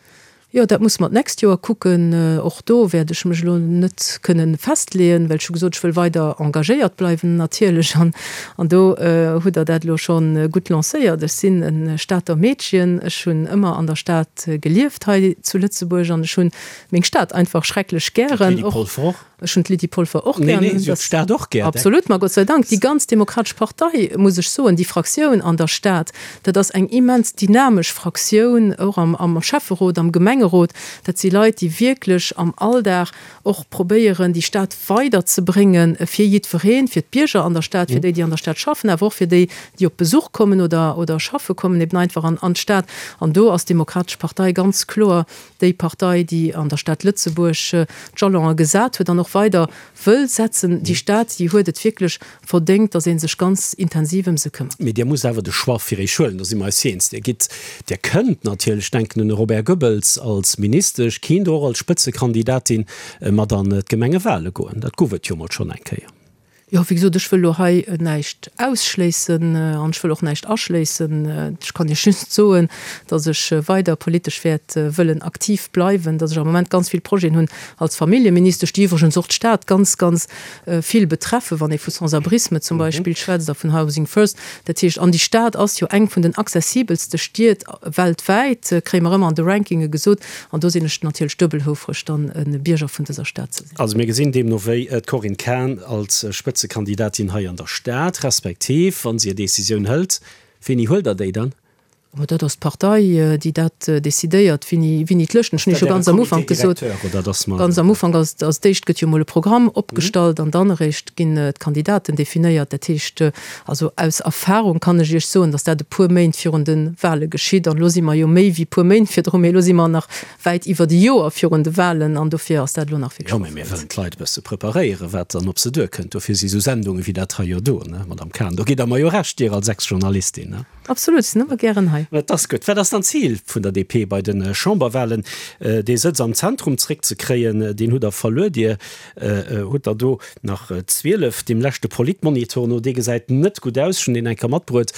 Jo, dat musse mer d'nächst Joer kucken. Och do wäert ech mech elo net kënne festleeën, well ech hu gesot, ech wëll weider engagéiert bleiwen natierlech. An, an do hutt Der dat elo scho gutt lancéiert. Ech sinn e Stater Meedchen, ech hunn ëmmer an der Stad gelieft hei zu Lëtzebuerg an ech hunn meng Stad einfach schrecklech gären. D'Lydie Polfer och. Ech hunn d'Lydie Polfer och gär. Nee, nee, si huet d'Stad och gär. Absolut, ma Gott sei Dank. Déi ganz Demokratesch Partei, muss ech soen, déi Fraktioun an der Stad, dat ass eng immens dynamesch Fraktioun, och am, am Schäfferot, am Gemengerot. Dat si Leit, déi wierklech am Alldag och probéieren, déi Stad weiderzebréngen fir jiddwereen, fir d'Bierger an der Stad, fir déi, déi an der Stad schaffen, awer och fir déi, déi op Besuch kommen oder, oder schaffe kommen, eben einfach an, an d'Stad. An do ass d'Demokratesch Partei ganz kloer Déi Partei, déi an der Stad Lëtzebuerg d'Jalonen gesat huet an och weider wëll setzen, déi Stad, déi huet et wierklech verdéngt, datt ee sech ganz intensiv ëm se këmmert. Mee Dir musst awer de Choix fir Iech huelen, do si mer eis eens. Dir gitt, Dir kënnt natierlech, denken un de Robert Goebbels als Ministesch, kinnt och als Spëtzekandidatin mat an d'Gemengewale goen. Dat gouf et jo mol schonn eng Kéier. Jo, wéi gesot, ech wëll elo hei näischt ausschléissen an ech wëll och näischt aschléissen. Ech kann Iech just soen, datt ech weider politesch wäert wëllen aktiv bleiwen, datt ech am Moment ganz vill Projeten hunn als Familljeministesch, déi iwwregens och d'Stad ganz, ganz vill betreffen, wann ee vu Sans-abrisme zum Beispill schwätzt a vun Housing First. Dat heescht, an déi Stad ass jo eng vun den accessibelste Stied weltwäit, kréie mer ëmmer an de Rankinge gesot. An do sinn ech natierlech duebel houfreg, dann e Bierger vun dëser Stad ze sinn. Also mir gesinn deemno wéi d'Corinne Cahen als Spëtzekandidatin hei an der Stad, respektiv wa si hir Decisioun hëlt, wéini huelt Der déi dann? Ma dat ass d'Partei, déi dat decidéiert, wéini, wéini d'Lëschten. Ech hunn jo scho ganz am Ufank gesot, ganz am Ufank als, als d'éischt gëtt jo emol e Programm opgestallt an dann eréischt ginn d'Kandidaten definéiert. Dat heescht, also aus Erfahrung kann ech Iech soen, datt dat e puer Méint virun de Wahle geschitt. An elo si mer jo méi wéi puer Méint virdru, mee elo si mer nach wäit iwwert e Joer virun de Wahlen an dofir ass dat elo nach wierklech. Jo, mä mir wëllen d'Leit e bësse preparéieren, wat dann op se duerkënnt. Dofir si sou Sendunge wéi dat hei jo do, ne, Madame Cahen. Do gitt Der mer jo Recht, Dir als Ex-Journalistin, ne? Absolut, ech sinn ëmmer gären hei. Dat ass gutt. Wat ass dann d'Zil vun der DP bei de Chamberwahlen? Dee Sëtz am Zentrum zréckzekréien, deen hutt Der verluer. Dir hutt der do nach 12. Deem leschte Politmonitor no, dee gesäit net gutt aus, ech hunn deen eng Kéier matbruet,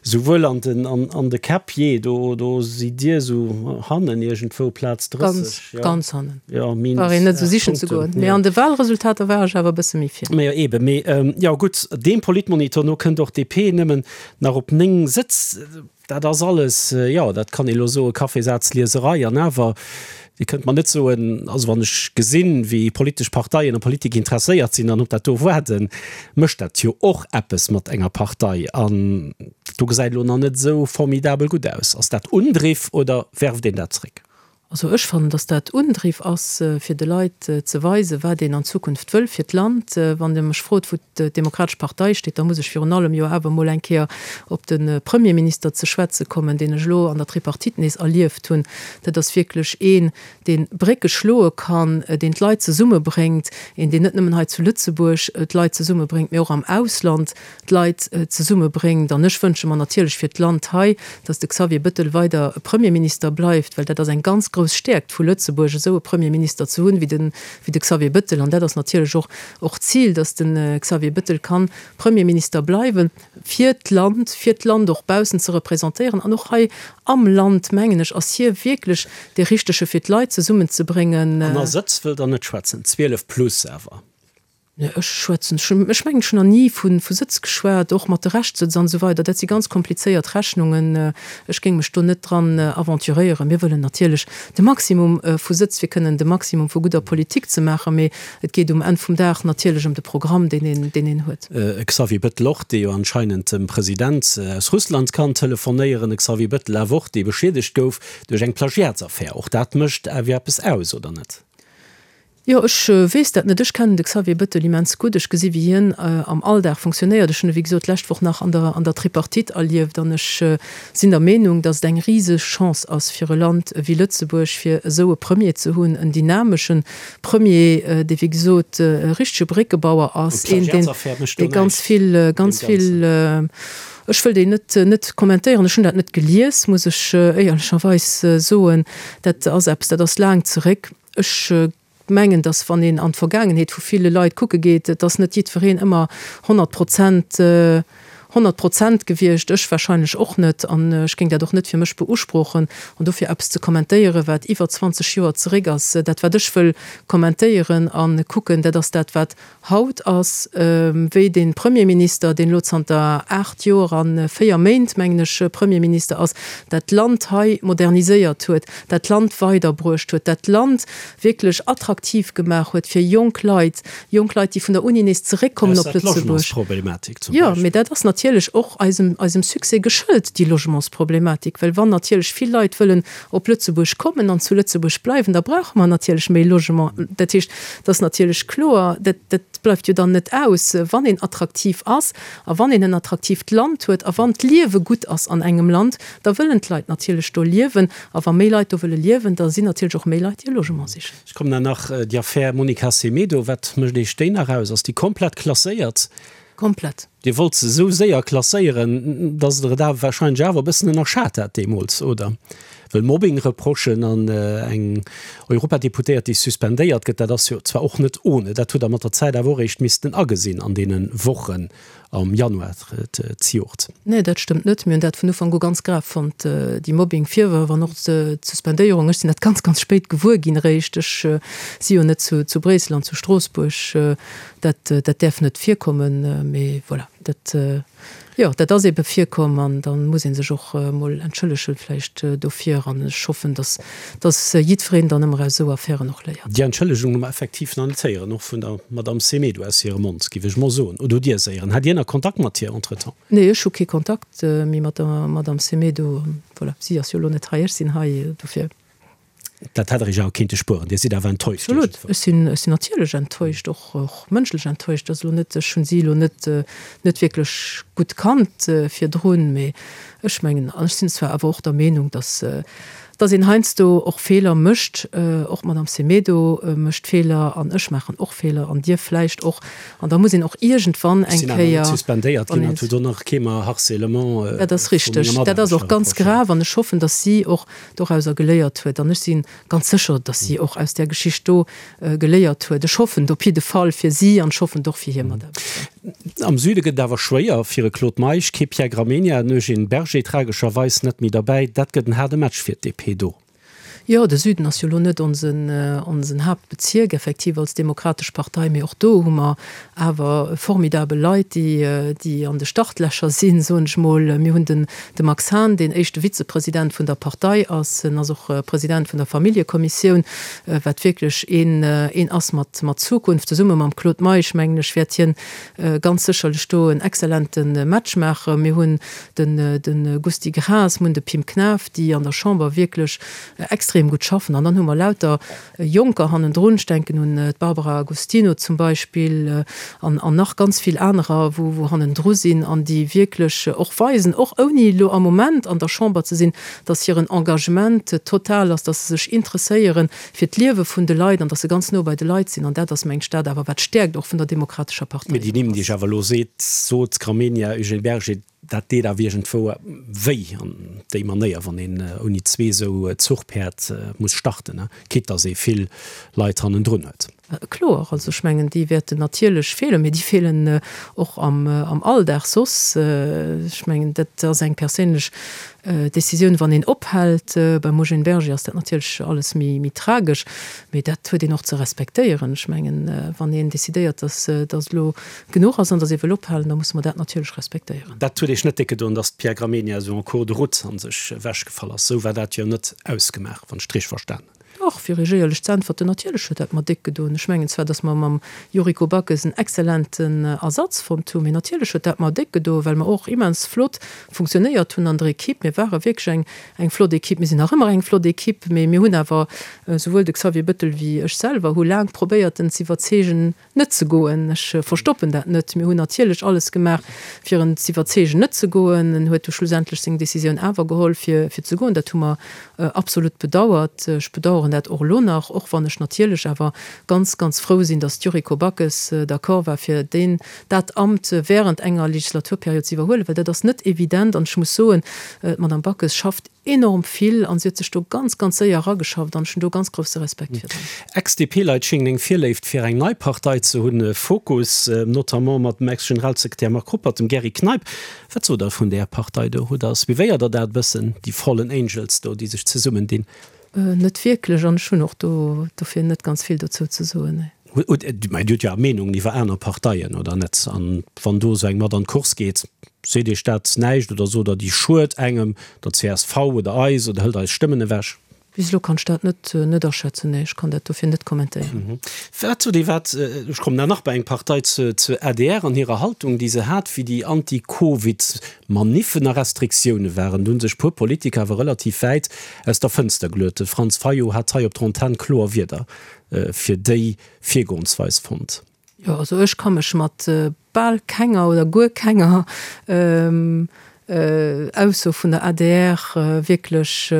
souwuel an den an de Käpp, jee, do do sidd Dir esou hannen iergendwou, Plaz 30, Ganz, jo. ganz hannen. Jo, minus Brauch een net esou 8 sichen ze Punkten, goen. Mee jo. an de Wahlresultater war ech awer e bësse méi vir. Mä jo, eeben. Mee jo, gutt, deem Politmonitor no kënnt och d'DP nëmmen nach op 9 Sëtz. Dat ass alles, jo, dat kann ee elo soen, Kaffeesazlieserei. An awer, Dir kënnt mer net soen, also wann ech gesinn, wéi politesch Parteien a Politik interesséiert sinn an op dat do waarden, mécht dat jo och eppes mat enger Partei. An do gesäit elo nach net esou formidabel gutt aus. Ass dat Undriff oder werft een dat zréck? Also ech fannen, datt dat Undriff ass, fir de Leit ze weisen, wat een an Zukunft wëll fir d'Land. Wann Der mech frot, wou d'Demokratesch Partei steet, da muss ech virun allem jo awer emol eng Kéier op de Premierminister ze schwätze kommen, deen ech elo an der Tripartite nees erlieft hunn. Dat ass wierklech een, dee Brécke schloe kann, deen d'Leit zesummebréngt, een, deen net nëmmen hei zu Lëtzebuerg d'Leit zesummebréngt, mee och am Ausland d'Leit zesummebréngt. An ech wënsche mer natierlech fir d'Land hei, datt de Xavier Bëttel weider Premierminister bleift, well dat ass eng ganz. grouss Stäerkt vu Lëtzebuerg, esou e Premierminister ze hunn, wéi de, wéi de Xavier Bëttel. An dat ass natierlech och, och d'Zil, datt de Xavier Bëttel kann Premierminister bleiwen, fir d'Land, fir d'Land och baussen ze representéieren. An och hei am Land, mengen ech, ass hie wierklech dee Richtege fir d'Leit zesummenzebréngen. An a Sëtz wëllt Der net schwätzen, 12 plus awer. Nee, ech schwätzen, ech mengen, ech hunn nach ni vu Sëtz geschwat, och mat de Reschtsëtz an esou weider. Dat si ganz komplizéiert Rechnungen. Ech géing mech do net dran aventuréieren. Mir wëllen natierlech de Maximum vu Sëtz, fir kënnen de Maximum vu gudder Politik ze maachen. Mee et geet um Enn vum Dag natierlech ëm de Programm, deen een, deen een huet. E Xavier Bettel och, dee jo anscheinend dem President aus Russland kann telefonéieren. E Xavier Bettel awer och, dee beschiedegt gouf duerch eng Plagiatsaffär. Och dat mécht awer eppes aus, oder net? Jo, ech weess dat net. Ech kennen de Xavier Bettel immens gutt. Ech gesi wéi hien am Alldag funktionéiert. Ech hunn e wéi gesot d'lescht Woch nach an der an der Tripartite erlieft an ech sinn der Meenung, datt et eng riseg Chance ass fir e Land ewéi Lëtzebuerg, fir esou e Premier ze hunn, en dynamesche Premier, dee wéi gesot e richtege Bréckebauer ass, een deen dee ganz vill ganz vill, ech wëll déi net net kommentéieren, ech hunn dat net gelies, muss ech éierlecherweis soen. Dat ass eppes, dat ass laang zeréck. Ech mengen, datt wann een an d'Vergaangenheet vu ville Leit kucke geet, et ass net jiddwereen ëmmer 100 Prozent, 100 Prozent gewiescht, ech wahrscheinlech och net, an ech géing dat och net fir mech beusprochen. An dofir eppes ze kommentéieren, wat iwwer 20 Joer zeréck ass, dat wat ech wëll kommentéieren a kucken, dat ass dat wat Haut ass, wéi de Premierminister, deen elo zanter 8 Joer a 4 Méint, mengen ech, Premierminister ass, dat Land hei moderniséiert huet, dat Land weiderbruecht huet, dat Land wierklech attraktiv gemaach huet fir jonk Leit, jonk Leit, déi vun der Uni nees zeréckkommen op Lëtzebuerg. Jo, mee dat ass natierlech och eisem, eisem Succès geschëlt, déi Logementsproblematik, well wann natierlech vill Leit wëllen op Lëtzebuerg kommen an zu Lëtzebuerg bleiwen, da brauche mer natierlech méi Logement. Dat heescht, Et ass natierlech kloer, dat, dat bleift jo dann net aus, wann een attraktiv ass a wann een en attraktiivt Land huet a wann d'Liewe gutt ass an engem Land, da wëllen d'Leit natierlech do liewen. A wa méi Leit do wëlle liewen, da sinn natierlech och méi Leit, déi e Logement sichen. Ech kommen dann nach, déi Affär Monica Semedo, wat mécht Iech déi nach aus? Ass déi komplett klasséiert? Komplett. Dir wollt se esou séier klasséieren, dass Der et awer wahrscheinlech awer e bëssen ënnerschat hat deemools, oder? Well Mobbing-Reprochen an eng Europadeputéiert, déi suspendéiert gëtt, dat ass jo zwar och net ohne. Dat hutt Der mat der Zäit awer och eréischt missten agesinn an deene Wochen am Januar zejoert. Nee, dat stëmmt net. Mir hunn dat vun Ufank u ganz grav fonnt, déi Mobbing-Virwërf an och d'Suspendéierung. Ech sinn dat ganz, ganz spéit gewuer ginn eréischt. Ech si jo net zu Bréissel an zu Stroossbuerg. Dat, dat däerf net virkommen, mee voilà, dat, jo, dat ass ebe virkomm an da muss ee sech och emol entschëllegen vläicht dofir an ech hoffen, dass, dass jiddwereen dann ëmmer aus esou Affären och léiert. Déi Entschëllegung hu mer effektiv nach net héieren, och vun der Madamm Semedo aus hirem Mond, géif ech mol soen. Oder hutt Dir se héieren? Hat Dir nach Kontakt mat hir entretemps? Nee, ech hu kee Kontakt méi mat der Madamm Semedo. Voilà, si ass jo elo net hei, ech sinn hei, dofir. Dat hätt Der Iech awer kéinte spueren. Dir sidd awer enttäuscht Absolut. Ech sinn, ech sinn natierlech enttäuscht, och, och mënschlech enttäuscht. Ass elo net, ech hunn si elo net, net wierklech gutt kannt virdrun, mee ech mengen, an ech sinn zwar awer och der Meenung, datt, datt een heiansdo och Feeler mécht, och d'Madame Semedo mécht Feeler an ech maachen och Feeler an Dir vläicht och, an da muss een och iergendwann eng Ech sinn awer net Kéier, suspendéiert ginn an et huet och nach kee mer Harcèlement Dat ass vu richteg. menger Dat ass och Mataarbechter ganz reprochéiert. grav an ech hoffen, datt si och dorauser geléiert huet. An ech si ganz sécher, datt si och aus där Geschicht do geléiert huet. Ech hoffen et op jidde Fall fir si an ech hoffen et och fir hir Mataarbechter. Am Süde gëtt et awer schwéier fir e Claude Meisch. Kee Pierre Gramegna, en Eugène Berger tragescherweis net méi derbäi. Dat gëtt en haarde Match fir d'DP do. Jo, de Süden ass jo elo net onsen, onsen Haaptbezierk effektiv als Demokratesch Partei, mee och do hu mer awer formidabel Leit, déi, déi an de Startlächer sinn, soen ech mol. Mir hunn den, de Max Hahn, deen éischte Vizepresident vun der Partei ass. En ass och President vun der Familljekommissioun, wat wierklech een, een ass mat, mat Zukunft. Zesumme mam Claude Meisch, mengen ech, wäert hien ganz sécherlech do en exzellente Match maachen. Mir hunn den, de Gusty Graas, mir hunn de Pim Knaff, déi an der Chamber wierklech extrem gutt schaffen. An dann hu mer lauter Jonker hannendrun, ech denken un d'Barbara Agostino zum Beispill an an nach ganz vill anerer, wou wou hannendru sinn an déi wierklech och weisen, och ouni elo am Moment an der Chamber ze sinn, datt hiren Engagement total ass, datt se sech interesséiere fir d'Liewe vun de Leit an datt se ganz no bei de Leit sinn. An dat ass, mengt ech, dat awer wat d'Stäerkt och vun der Demokratescher Partei Mee déi Nimm, déi ech ass. awer elo seet, sot, Gramegna, Eugène Berger, Dat deet awer iergendwou wéi an déi Manéier, wann een ouni zwee esou Zuchpäerd muss starten, quitte dass ee vill Leit hannendrun huet. Kloer, also ech mengen, déi wäerten natierlech feelen, mee déi feelen och am Alldag soss. Ech mengen, dat ass eng perséinlech Decisioun, wann een ophält. Beim Eugène Berger ass dat natierlech alles méi tragesch, mee dat huet een och ze respektéieren. Ech mengen, wann een decidéiert, dass et elo genuch ass an dass ee wëll ophalen, da musse mer dat natierlech respektéieren. Dat huet Iech net déck gedoen, dass d'Pia Gramegna esou en cours de route an sech ewechgefall ass? Esou war dat jo net ausgemaach, wann ech d'richteg verstanen hunn. Dach, fir Iech éierlech ze äntwerten, natierlech huet dat mer déck gedoen. Ech mengen zwar, dass mer mam Yuriko Backes en exzellenten Ersatz fonnt hunn, mee natierlech huet dat mer déck gedoen, well mer och immens flott funktionéiert hunn an der Equipe. Mir ware wierklech eng, eng flott Equipe. Mir sinn nach ëmmer eng flott Equipe, mee mir hunn awer, souwuel de Xavier Bettel wéi ech selwer, hu laang probéiert, en ze iwwerzeegen, net ze goen. Ech verstoppen dat net. Mir hunn natierlech alles gemaach, fir en z'iwwerzeegen, net ze goen. En huet du schlussendlech seng Décisioun awer geholl, fir ze goen. Dat hu mer absolut bedauert. Ech bedauern dat och elo nach, och wann ech natierlech awer ganz, ganz frou sinn, datt d'Yuriko Backes d'accord war, fir deen, dat Amt während enger Legislaturperiod ze iwwerhuelen, well dat ass net evident. An ech muss soen, d'Madame Backes schafft Enorm vill an si huet sech do ganz ganz séier erageschafft an ech hunn do ganz grousse Respekt virdrun. Ex-DP-Leit schéngen eng Virléift fir eng nei Partei ze hunn, Fokus, notamment mat dem Ex-Generalsekretär Marc Ruppert, dem Gerry Kneip. Wat sot der vun där Partei do? Hutt der, suivéiert der dat e bëssen, déi Fallen Angels do, déi sech zesummendinn? Net wierklech an ech hunn och do dofir net ganz vill dozou ze soen, nee. Mä Dir hutt jo awer Meenungen iwwer aner Parteien, oder net? An wann do esou eng mat an d'Course geet, seet Iech dat näischt oder sot Der, déi schued engem, der csv oder eis oder hëlt eis Stëmmen ewech? Bis elo kann ech dat net net aschätzen, nee, ech kann dat dofir net kommentéieren. Wat sot Dir, wat, ech kommen da nach bei eng Partei, zur adr an hirer Haltung, déi se hat, wéi déi Anti-Covid-Maniffen a Restriktioune waren? Do hu sech puer Politiker awer relativ wäit aus der Fënster geluet. De Franz Fayot hat hei op der Antenn kloer Wierder fir déi Virgoensweis fonnt. Jo, also ech ka mech mat bal kenger oder guer kenger Ausso vun der adr wierklech,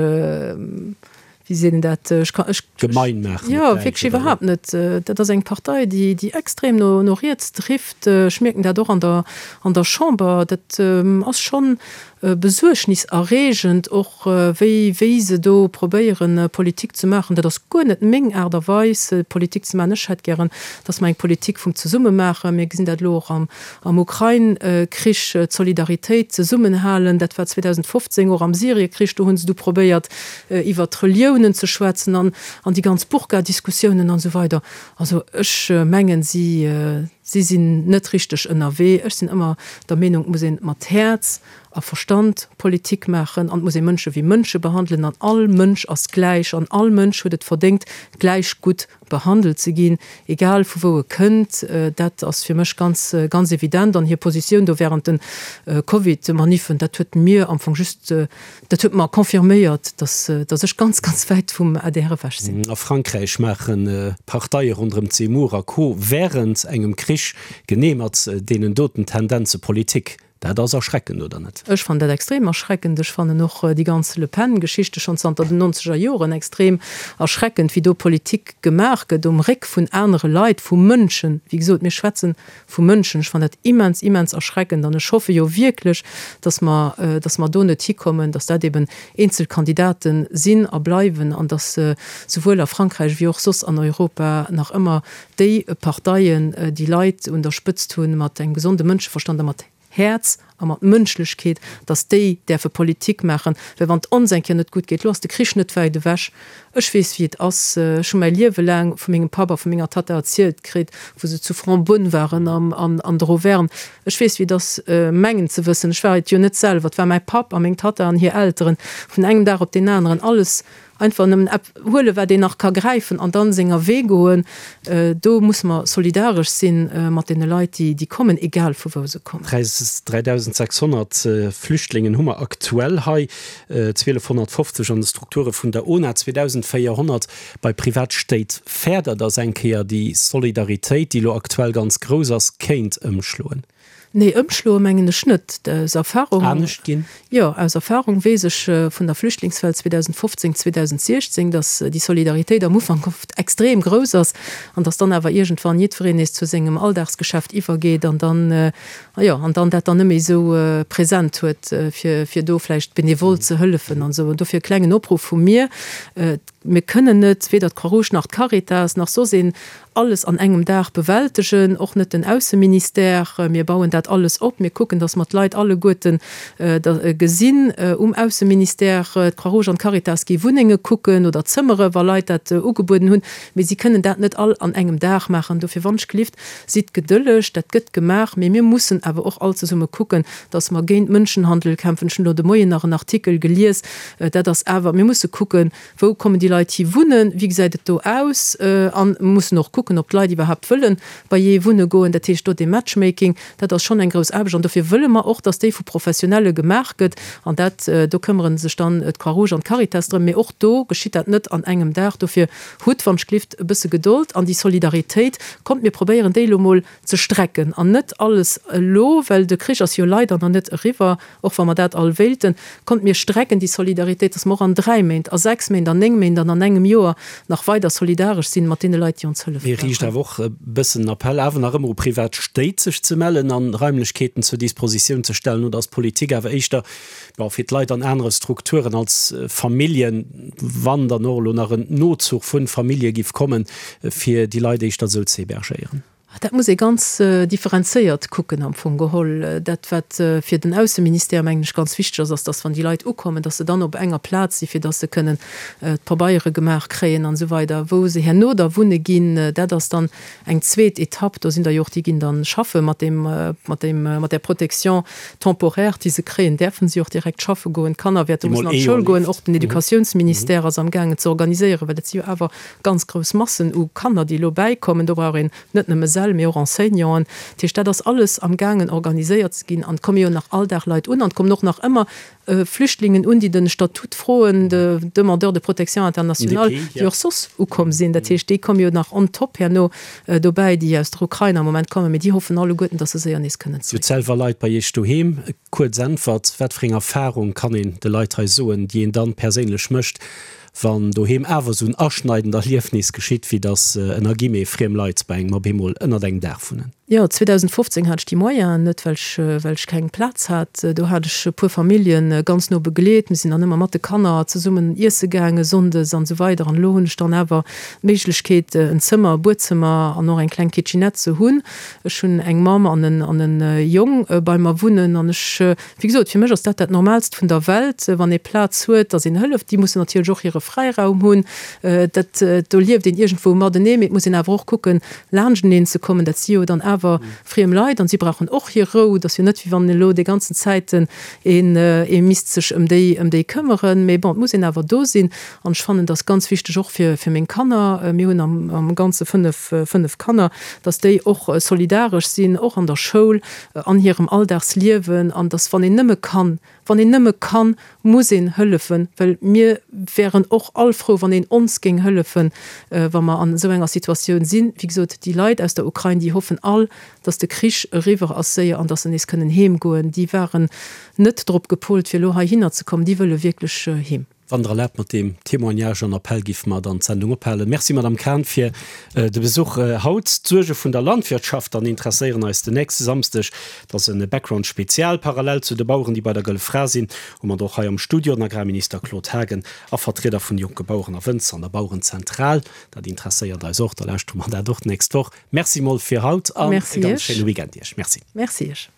wéi seet een dat, ech ka, ech. Gemein maachen. Jo, wierklech iwwerhaapt net. Dat ass eng Partei, déi, déi extrem no, no riets drift. Ech mierken dat och an der, an der Chamber. Dat ass schonn Besuergniserreegend och, wéi wéi se do probéieren, Politik ze maachen. Dat ass guer net meng Aart a Weis, Politik ze maachen. Ech hätt gären, datt mer eng Politik vum Zesumme maachen. Mir gesinn dat elo och am am Ukrain-Krich, d'Solidaritéit, d'Zesummenhalen. Dat war 2015 och am Syrie-Krich, do hu se du probéiert, iwwert d'Reliounen ze schwätzen an an déi ganz Burka-Diskussiounen an esou weider. Also ech mengen, si Si sinn net richteg ënnerwee. Ech sinn ëmmer der Meenung, et muss een mat Häerz a Verstand Politik maachen an et muss ee Mënsche wéi Mënsche behandelen an all Mënsch ass gläich an all Mënsch huet et verdéngt, gläich gutt behandelt ze ginn, egal vu wou e kënnt. Dat ass fir mech ganz, ganz evident. An hir Positioun do während de Covid-Maniffen, dat huet mir am Fong just Dat huet mer confirméiert, dass dass ech ganz, ganz wäit vum adr ewech sinn. A Frankräich maache Parteie ronderëm Zemmour a Co. Wärend engem Krich genee mat deenen doten Tendenze Politik. Dat ass erschreckend, oder net? Ech fannen dat extrem erschreckend. Ech fannen och déi ganz Le Pen-Geschichte schonn zanter den nonzeger Joren extrem erschreckend, wéi do Politik gemaach gëtt um Réck vun anere Leit, vu Mënschen. Wéi gesot, mir schwätzen vu Mënschen. Ech fannen dat immens, immens erschreckend an ech hoffe jo wierklech, dass mer, dass mer do net hikommen, dass dat eben eenzel Kandidate sinn a bleiwen an dass souwuel a Frankräich wéi och soss an Europa nach ëmmer déi Parteien, déi Leit un der Spëtzt hunn, mat engem gesonde Mënscheverstand a mat Häerz a mat Mënschlechkeet, dass déi däerfe Politik maachen, well wann et ons eng Kéier net gutt geet, elo ass de Krich net wäit ewech, ech weess wéi et ass, ech hu mäi Liewe laang vu mengem Papp a vu menger Tatta erzielt kritt, wou se zu Fontbonne waren an der Auvergne, ech weess wéi et ass, mengen ze wëssen, ech war et jo net selwer, et war mäi Papp a meng Tatta an hir Elteren, vun engem Dag op deen aneren alles Einfach nëmmen ep huelen, wat een nach ka gräifen an dann senger Wee goen. Do musse mer solidaresch sinn mat deene Leit, déi déi kommen, egal vu wou se kommen. 3.600 Flüchtlingen hu mer aktuell hei, 1.250 an de Strukture vun der ona, 2.400 bei Privatstéit. Fäert Der, datt eng Kéier déi Solidaritéit, déi elo aktuell ganz grouss ass, kéint ëmschloen? Nee, ëmschloe mengen ech net. Aus Erfahrung. Anescht ginn? Jo, aus Erfahrung weess ech vun der Flüchtlingswell 2015, 2016, datt déi Solidaritéit am Ufank oft extrem grouss ass an datt dann awer iergendwann jiddwereen nees zu sengem Alldagsgeschäft iwwergeet an dann, jo, an dann dat dann net méi esou present huet, fir, fir do vläicht benevol ze hëllefen an esou. An dofir e klengen Opruff vu mir, Mir kënnen net, weder d'Croix-Rouge nach d'Caritas nach soss een, alles an engem Dag bewältegen, och net den Ausseministère. Mir bauen dat alles op. Mir kucken, datt mer d'Leit alleguerten gesinn um Ausseministère. D'Croix-Rouge an d'Caritas gi Wunnenge kucken oder Zëmmere wa Leit dat ugebueden hunn. Mee si kënnen dat net all an engem Dag maachen. Dofir wannschgelift, sidd gedëlleg, dat gëtt gemaach. Mee mir mussen awer och all zesumme kucken, datt mer géint Mënschenhandel kämpfen. Ech hunn elo de Moien nach en Artikel gelies, Dat ass awer, mir musse kucken, wou kommen déi Leit hi wunnen, wéi gesäit et do aus? A mussen och kucken, ob d'Leit iwwerhaapt wëlle bei jee wunne goen. Dat heescht, do dee Matchmaking, dat ass schonn eng grouss Aarbecht. An dofir wëlle mer och, datt déi vu Professionelle gemaach gëtt. An dat, do këmmere sech dann d'Croix-Rouge an d'Caritas drëm. Mee och do geschitt dat net an engem Dag. Dofir hutt, wann ech glift, e bësse Gedold an déi Solidaritéit. Kommt, mir probéieren déi elo mol ze strecken an net alles elo, well de Krich ass jo leider nach net eriwwer, och wa mer dat all wéilten. Kommt, mir strecken déi Solidaritéit, dass mer och an dräi Méint, a sechs Méint, an néng Méint an an engem Joer nach weider solidaresch sinn mat deene Leit, déi ons hëllefe Mir riicht brauchen. awer och e bëssen en Appell awer nach ëmmer u privat Stéit, sech ze mellen an Raimlechkeeten zur Dispositioun ze stellen. Oder ass d'Politik awer éischter, bon, fir d'Leit an anere Strukturen als Familljen, wann dann och elo nach en Nozuch vu Famillje giff kommen, fir déi Leit éischter esou ze hébergéieren? Dat muss ee ganz differenzéiert kucken am Fong geholl. Dat, wat fir den Ausseministère, mengen ech, ganz wichteg ass, ass, dass, wann déi Leit ukommen, dass se dann op enger Plaz sinn, fir dass se kënnen d'Pabeiere gemaach kréien an esou weider. Wou se herno da wunne ginn, dat ass dann eng zweet Etapp. Do sinn der jo och, déi ginn da schaffe mat deem, mat deem, mat där Protection temporaire, déi se kréien, däerfe si och direkt schaffe goen. D'Kanner wäerte mussen an d'Schoul goen. Och den Educatiounsministère ass amgaangen ze organiséieren, well dat si jo awer ganz grouss Massen u Kanner, déi elo bäikommen. Do brauch een net nëmme Säll, mee och Enseignanten. Dat heescht, dat ass alles amgaangen organiséiert ze ginn. An et komme jo nach all Dag Leit un an et kommen och nach ëmmer Flüchtlingen un, déi de Statut froen, de Demandeurs de protection internationale, déi och soss ukomm sinn. Dat heescht, déi komme jo nach on top herno dobäi, déi aus der Ukrain am Moment kommen. Mee déi hoffen alleguerten, datt se séier nees kënnen Dir hutt selwer Leit bei Iech doheem. Kuerz Äntwert, Wat fir eng Erfarung kann een de Leit hei soen, déi een dann perséinlech mécht, Wann doheem awer esou en aschneidend Erliefnis geschitt, wéi dass ënner Guillemets friem Leit bei engem op eemol ënnert engem Daach wunnen. Jo, 2015 hat ech déi Moyenen net, well ech, well ech keng Plaz hat. Do hat ech e puer Familljen ganz no begleet. Mir sinn dann ëmmer mat de Kanner zesummen iesse gaange sonndes an esou weider. An elo hunn ech dann awer d'Méiglechkeet, en Zëmmer, e Buedzëmmer an och eng kleng Kitchenette ze hunn. Ech hunn eng Mamm an en, an e Jong bei mer wunnen an ech Wéi gesot, fir mech ass dat dat Normaalst vun der Welt, wann ee Plaz huet, datt een hëlleft. Déi mussen natierlech och hire Fräiraum hunn. Dat, do lieft een iergendwou matenee, mee et muss een awer och kucken, laanschteneen ze kommen. Dat si jo dann awer friem Leit an si brauchen och hir Rou. Et ass jo net, wéi wann elo déi ganzen Zäiten een, ee misst sech ëm déi, ëm déi këmmeren. Mee bon, et muss een awer do sinn. An ech fannen, dat ass ganz wichteg och fir, fir meng Kanner. Mir hunn am, am Ganze fënnef, fënnef Kanner, datt déi och solidaresch sinn, och an der Schoul. an hirem Alldagsliewen an dass wann een nëmme kann, wann een nëmme kann, muss een hëllefen, well mir wären och all frou, wann een ons géing hëllefen, wa mer an esou enger Situatioun sinn. Wéi gesot, déi Leit aus der Ukrain, déi hoffen all, dass de Krich eriwwer ass séier an dass se nees kënnen heem goen. Déi waren net drop gepolt, fir elo heihinner ze kommen, déi wëlle wierklech heem. Wann Der erlaabt, mat deem Témoignage an Appell géife mer dann d'Sendung ophalen. Merci, Madame Cahen, fir de Besuch haut. D'Suerge vun der Landwirtschaft dann interesséieren eis den nächste Samsdeg. Dat ass e Background Spezial. Parallel zu de Baueren, déi bei der Gëlle Fra sinn, hu mer och hei am Studio den Agrarminister Claude Haagen a Vertrieder vun de jonke Baueren a Wënzer an der Bauerenzentral. Dat interesséiert eis och. Da lauschtere mer dat och d'nächst Woch. Merci mol fir haut an e ganz schéine Weekend Iech. Merci. Merci Iech.